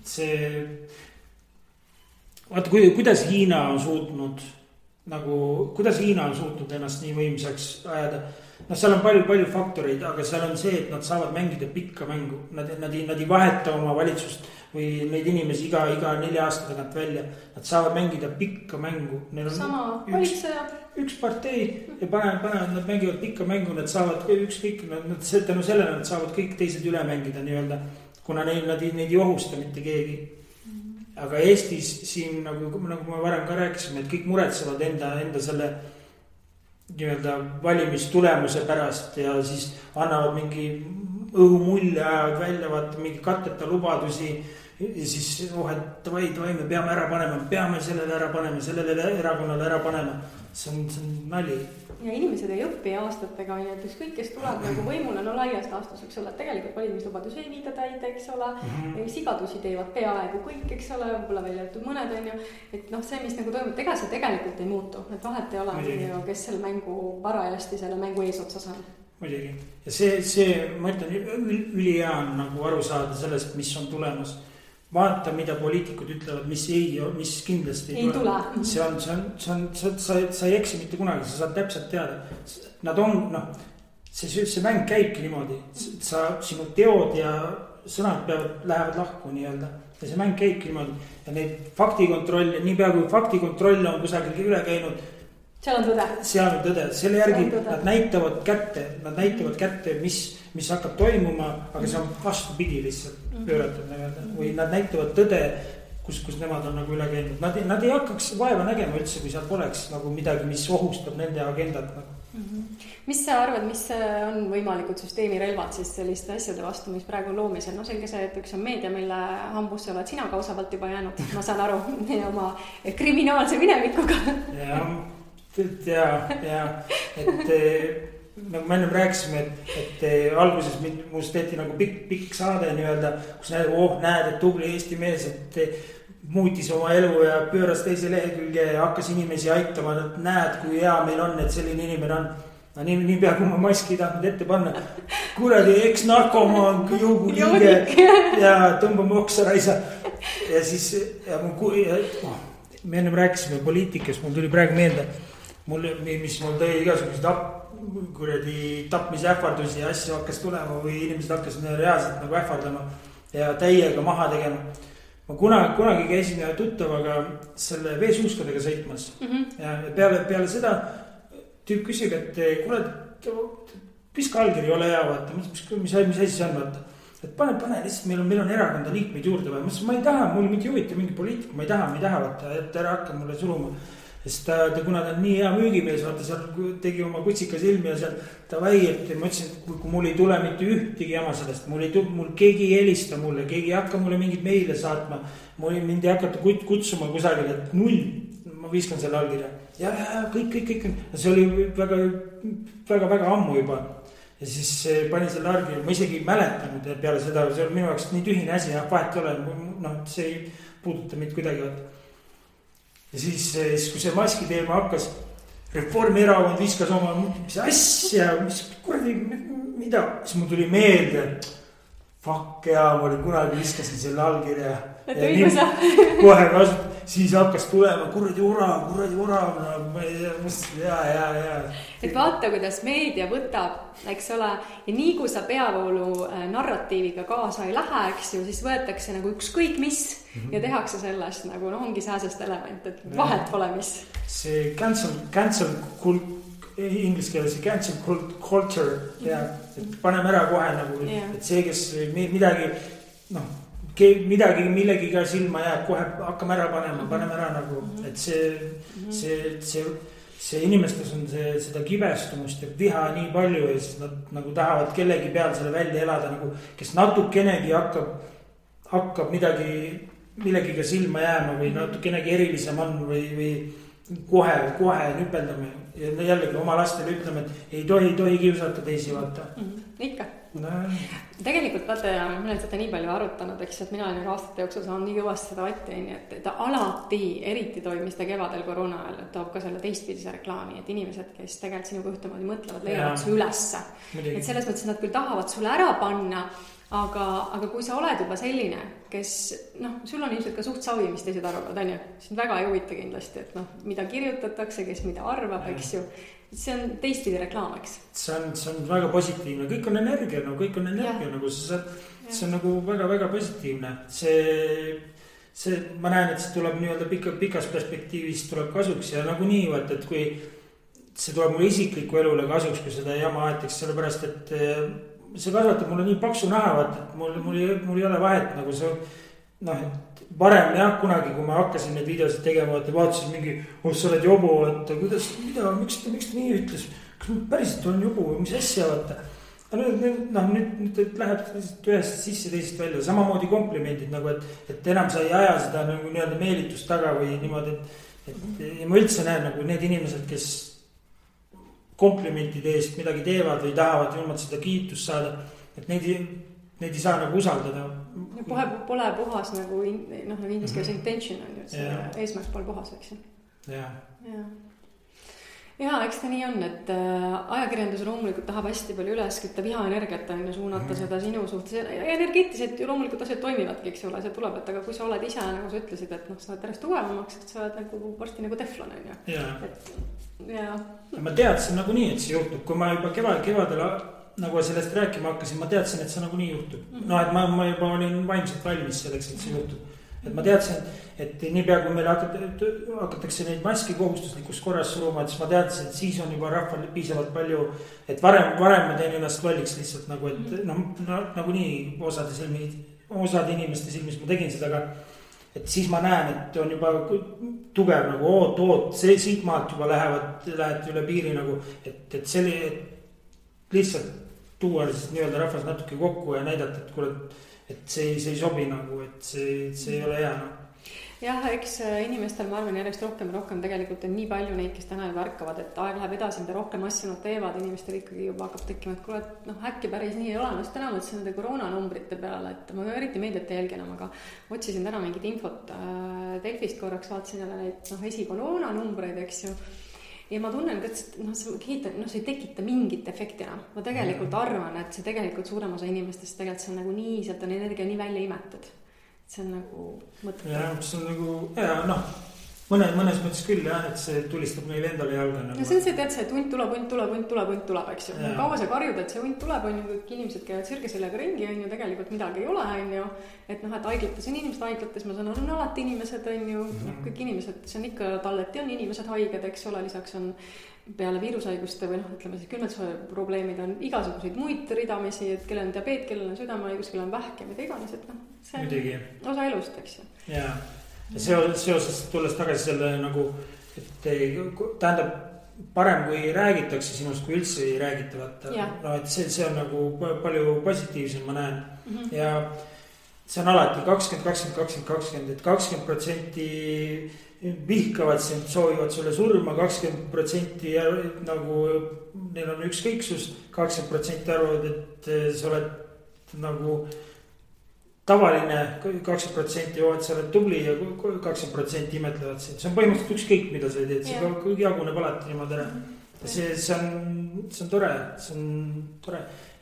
B: See, vaata, kuidas Hiina on suutnud ennast nii võimsaks ajada. Seal on palju faktoreid, aga seal on see, et nad saavad mängida pikka mängu. Nad ei vaheta oma valitsust või neid inimesi iga 4 aasta tagant välja. Nad saavad mängida pikka mängu.
A: Sama valitseja.
B: Üks partei ja nad mängivad pikka mängu, nad saavad ükskõik, tänu sellele nad saavad kõik teised üle mängida nii-öelda, kuna nad ei ohusta mitte keegi. Aga Eestis siin, nagu me varem ka rääkisime, et kõik muretsevad enda selle nii-öelda valimistulemuse pärast ja siis annavad mingi õhumulje, ajavad välja, vaata mingi katteta lubadusi ja siis et davai, me peame ära panema, peame sellele ära panema, sellele erakonnale ära panema. See on nali.
A: Ja inimesed ei õppi aastatega, et ükskõik, kes tuleb nagu võimule, laias laastus, eks ole, tegelikult valimislubadus ei viida täide, eks ole, sigadusi teevad peaaegu kõik, eks ole, võib-olla välja jätud mõned on ju, et see, mis nagu toimub, ega see tegelikult ei muutu, et vahet ei ole, kes selle mängu parajasti selle mängu eesotsas on.
B: Muidugi. Ja see ma ütlen, ülihea on nagu aru saada sellest, mis on tulemas. Vaata, mida poliitikud ütlevad, mis kindlasti
A: ei tule.
B: Sa ei eksi mitte kunagi, sa saad täpselt teada. Nad on, see mäng käibki niimoodi. Sinu teod ja sõnad lähevad lahku nii-öelda. Ja see mäng käibki niimoodi. Ja neid faktikontroll, nii pea kui faktikontroll on kusagil üle käinud.
A: Seal on tõde. Selle järgi nad näitavad kätte, mis hakkab toimuma, aga see on vastupidi lihtsalt pööratud. Või nad näitavad tõde, kus nemad on nagu üle käinud. Nad ei hakkaks vaeva nägema üldse, kui seal poleks nagu midagi, mis ohustab nende agendat. Mis sa arvad, mis on võimalikud süsteemi relvad siis selliste asjade vastu, mis praegu loomisel? Selge see, et üks on meedia, mille hambusse oled sina kausavalt juba jäänud, ma saan aru, oma kriminaalse minevikuga. Et nagu me ennem rääkisime, et alguses muust tehti nagu pikk saade nii-öelda, kus näed, et tubli Eesti mees, et muutis oma elu ja pööras teise lehekülge ja hakkas inimesi aitama, et näed, kui hea meil on, et selline inimene on. Nii pea, kui ma maski ei tahtnud ette panna. Kuradi eks-narkomaan, juuguliige ja tõmbame oksa raisa. Ja siis me ennem rääkisime poliitikas, mul tuli praegu meelde, mis mul tõi igasugused tapmise ähvardusi ja asju hakkas tulema või inimesed hakkas reaalselt nagu ähvardama ja täiega maha tegema. Ma kunagi käisin tuttavaga selle veesuuskadega sõitmas ja peale seda tüüp küsib, et kuule, piska allkiri ole hea, vaata, mis asi see on, vaata. Et pane lihtsalt, meil on erakonda liikmeid juurde või. Ma ei taha, mul mitte juhita mingi poliitik, ma ei taha, vaata, et ära hakka mulle suruma. Sest kuna ta on nii hea müügimees, vaata seal tegi oma kutsika silmi ja seal davai, et ma ütlesin, et kui mul ei tule mitte ühtegi jama sellest, mul keegi ei helista mulle, keegi ei hakka mulle mingit meile saatma, mind ei hakata kutsuma kusagil, et 0, ma viskan selle allkirja. Ja kõik. See oli väga ammu juba. Ja siis pani selle allkirja, ma isegi ei mäletanud peale seda, see oli minu jaoks nii tühine asi, vahet ei ole, see ei puuduta mind kuidagi, vaata. Ja siis, kui see maski teema hakkas, Reformierakond viskas oma, mis asja, mis kuradi, mida, siis mul tuli meelde,
B: fuck jaa, ma olin kunagi viskasin selle allkirja.
A: Et õigus.
B: Kohe kasut, siis hakkas tulema kuradi orav, no, ja.
A: Et vaata, kuidas meedia võtab, eks ole, ja nii kui sa peavoolu narratiiviga kaasa ei lähe, eks ju, siis võetakse nagu ükskõik mis ja tehakse sellest nagu, no ongi sääsest element, et vahet pole mis.
B: See cancel inglise keeles see cancel culture ja et paneme ära kohe nagu, et see, kes midagi, noh, millegiga silma jääb, kohe hakkame ära paneme ära nagu, et see inimestes on seda kibestumust ja viha nii palju ja siis nad nagu tahavad kellegi peal selle välja elada nagu, kes natukenegi hakkab millegiga silma jääma või natukenegi erilisem on või kohe nüpeldame ja jällegi oma lastele ütleme, et ei tohi kiusata teisi, vaata.
A: Ikka. Tegelikult vaata, ma olen seda nii palju arutanud, eks, et mina olen aastate jooksul saanud nii kõvasti seda vatti, et ta alati, eriti toimis ta kevadel koroona ajal, et toob ka selle teistpidise reklaami, et inimesed, kes tegelikult sinuga ühtemoodi mõtlevad, leiavad su ülesse. Et selles mõttes, et nad küll tahavad sulle ära panna, aga kui sa oled juba selline, kes, noh, sul on ilmselt ka suht savi, mis teised arvavad, on ju? Sind väga ei huvita kindlasti, et noh, mida kirjutatakse, kes mida arvab, eks ju. See on teistpidi reklaam, eks? See
B: on väga positiivne, kõik on energia, no kõik on energia, nagu see on nagu väga-väga positiivne. See, ma näen, et see tuleb nii-öelda pikas perspektiivis tuleb kasuks ja nagu nii, et kui see tuleb mulle isikliku elule kasuks, kui seda jama aetaks, sellepärast, et see kasvatab mulle nii paksu naha, et mul ei ole vahet nagu see, noh, et varem jah, kunagi, kui ma hakkasin neid videosid tegema, et vaatasin mingi, sa oled jobu, et kuidas, miks ta nii ütles, kas ma päriselt olen jobu või mis asja, vaata. Nüüd läheb ühest sisse teisest välja, samamoodi komplimendid nagu, et enam sa ei aja seda nagu nii-öelda meelitust taga või niimoodi, et ma üldse näen nagu need inimesed, kes komplimentide eest midagi teevad või tahavad ilmalt seda kiitust saada, et neid ei saa nagu usaldada.
A: Pole puhas nagu, noh, nagu inglise keeles intention on ju, et see eesmärk pole puhas, eks ju. Ja, eks ta nii on, et ajakirjandus loomulikult tahab hästi palju üles kütta vihaenergiat on ju suunata seda sinu suhtes. Energeetiliselt ju loomulikult asjad toimivadki, eks ole, see tuleb, et aga kui sa oled ise, nagu sa ütlesid, et noh, sa oled järjest tugevamaks, et sa oled nagu varsti nagu teflon on ju. Ja
B: ma teadsin nagu nii, et see juhtub, kui ma juba kevadel nagu sellest rääkima hakkasin, ma teadsin, et see nagu nii juhtub. No, et ma juba olin vaimselt valmis selleks, et see juhtub. Et ma teadsin, et niipea kui meil hakatakse neid maski kohustuslikus korras suruma, et siis ma teadsin, et siis on juba rahval piisavalt palju, et varem ma teen ennast lolliks lihtsalt nagu, et nagu nii osade inimeste silmis ma tegin seda, aga et siis ma näen, et on juba tugev nagu oot, see siit maalt juba lähevad üle piiri nagu, et lihtsalt tuua siis nii-öelda rahvas natuke kokku ja näidata, et see ei sobi nagu, et see ei ole hea.
A: Jah, eks inimestel ma arvan järjest rohkem tegelikult on nii palju neid, kes täna juba ärkavad, et aeg läheb edasi, mida rohkem asju nad teevad, inimestel ikkagi juba hakkab tekkima, et kuule, et noh, äkki päris nii ei ole, ma täna mõtlesin nende koroonanumbrite peale, et ma eriti meediat jälgin, aga otsisin täna mingit infot Delfist korraks, vaatasin jälle neid esikoroona-numbreid, eks ju. Ja ma tunnen, et see ei tekita mingit efekti enam. Ma tegelikult arvan, et see tegelikult suurem osa inimestest tegelikult see on nagu nii, sealt on energia nii välja imetud. See on nagu mõttetu.
B: Ja, see on nagu, ja noh, mõnes mõttes küll jah, et see tulistab neile endale jalga.
A: No see on see, tead see, et hunt tuleb, eks ju. Kaua sa karjud, et see hunt tuleb, on ju, kõik inimesed käivad sirgesellega ringi, on ju, tegelikult midagi ei ole, on ju. Et noh, et haiglates on inimesed haiglates, ma saan on alati inimesed, on ju, kõik inimesed, see on ikka talleti on inimesed haiged, eks ole, lisaks on peale viirushaiguste või noh, ütleme siis külmetusvõime probleemid on igasuguseid muid ridamisi, et kellel on diabeet, kellel on südamehaigus, kellel on vähk ja mida iganes, et noh, see on osa elust, eks ju.
B: Ja seoses tulles tagasi selle nagu, et tähendab parem kui räägitakse sinust, kui üldse ei räägita, vaata. No, et see on nagu palju positiivsem, ma näen. Ja see on alati 20%, et 20% vihkavad sind, soovivad sulle surma, 20% nagu neil on ükskõiksus, 20% arvavad, et sa oled nagu tavaline, 20% joovad, sa oled tubli ja 20% imetlevad sind. See on põhimõtteliselt ükskõik, mida sa teed, see jaguneb alati niimoodi ära. see on tore,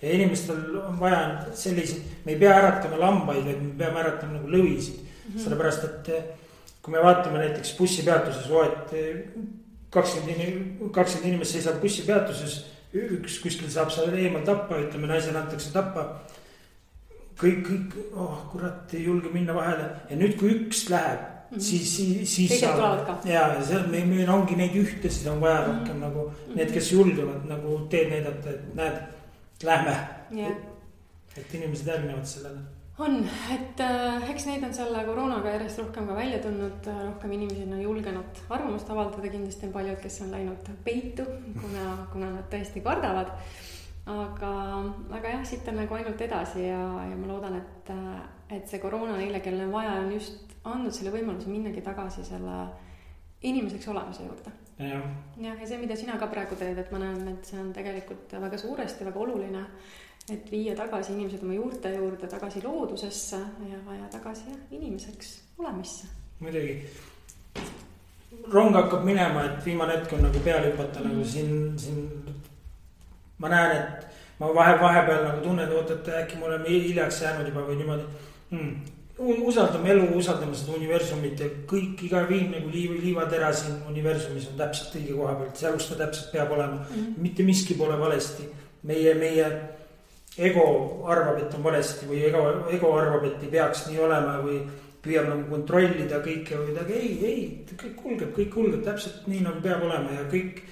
B: ja inimestel on vaja selliseid, me ei pea äratama lambaid, vaid me peame äratama nagu lõvisid. Sellepärast, et kui me vaatame näiteks bussipeatuses, 20 inimest seisab bussipeatuses, üks kuskil saab seal eemal tappa, ütleme naisele antakse tappa. Kõik, kurat, ei julge minna vahele. Ja nüüd, kui üks läheb, siis saab. Ja meil ongi neid ühtesid on vaja rohkem nagu need, kes julgevad nagu teed näidata, et näed, lähme. Et inimesed järgnevad sellele.
A: On, et eks neid on selle koroonaga järjest rohkem ka välja tulnud, rohkem inimesi on julgenud arvamust avaldada, kindlasti on paljud, kes on läinud peitu, kuna nad tõesti kardavad. Aga jah, siit on nagu ainult edasi ja ma loodan, et see koroona neile, kellel on vaja, on just andnud selle võimaluse minnagi tagasi selle inimeseks olemise juurde. Ja see, mida sina ka praegu teed, et ma näen, et see on tegelikult väga suuresti, väga oluline, et viia tagasi inimesed oma juurte juurde, tagasi loodusesse ja tagasi inimeseks olemisse.
B: Muidugi. Rong hakkab minema, et viimane hetk on nagu peale hüpata, nagu siin ma näen, et ma vahepeal nagu tunnen, et äkki me oleme hiljaks jäänud juba või niimoodi. Usaldame elu, usaldame seda universumit ja kõik, iga viim nagu liivatera siin universumis on täpselt õige koha pealt, seal kus ta täpselt peab olema. Mitte miski pole valesti. Meie ego arvab, et on valesti või ego arvab, et ei peaks nii olema või püüab nagu kontrollida kõike või midagi. Ei, kõik kulgeb täpselt nii nagu peab olema ja kõik,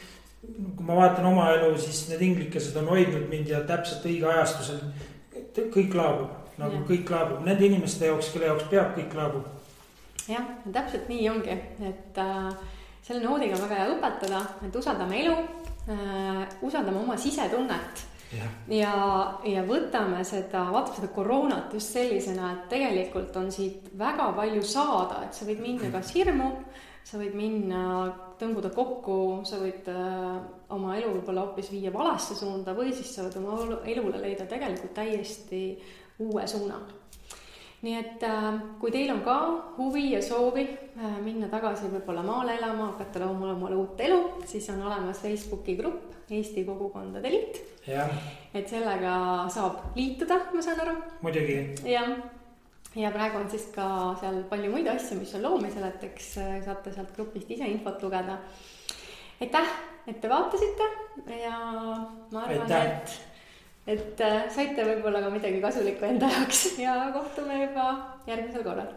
B: kui ma vaatan oma elu, siis need inglikesed on hoidnud mind ja täpselt õige ajastusel kõik laabub. Nagu kõik laabub. Nende inimeste jaoks, kelle jaoks peab, kõik laabub.
A: Jah, täpselt nii ongi, et selle noodiga väga hea õpetada, et usaldame elu, usaldame oma sisetunnet ja võtame vaatame seda koroonat just sellisena, et tegelikult on siit väga palju saada, et sa võid minna kas hirmu, sa võid minna tõmbuda kokku, sa võid oma elu võib-olla hoopis viia valesse suunda või siis sa võid oma elule leida tegelikult täiesti uue suuna. Nii et kui teil on ka huvi ja soovi minna tagasi võib-olla maale elama, hakata looma omale uut elu, siis on olemas Facebooki grupp Eesti Kogukondade Liit. Et sellega saab liituda, ma saan aru.
B: Muidugi.
A: Ja praegu on siis ka seal palju muid asju, mis on loomisel, et eks saate sealt grupist ise infot lugeda. Aitäh, et te vaatasite ja ma arvan, et saite võib-olla ka midagi kasulikku enda jaoks ja kohtume juba järgmisel korral.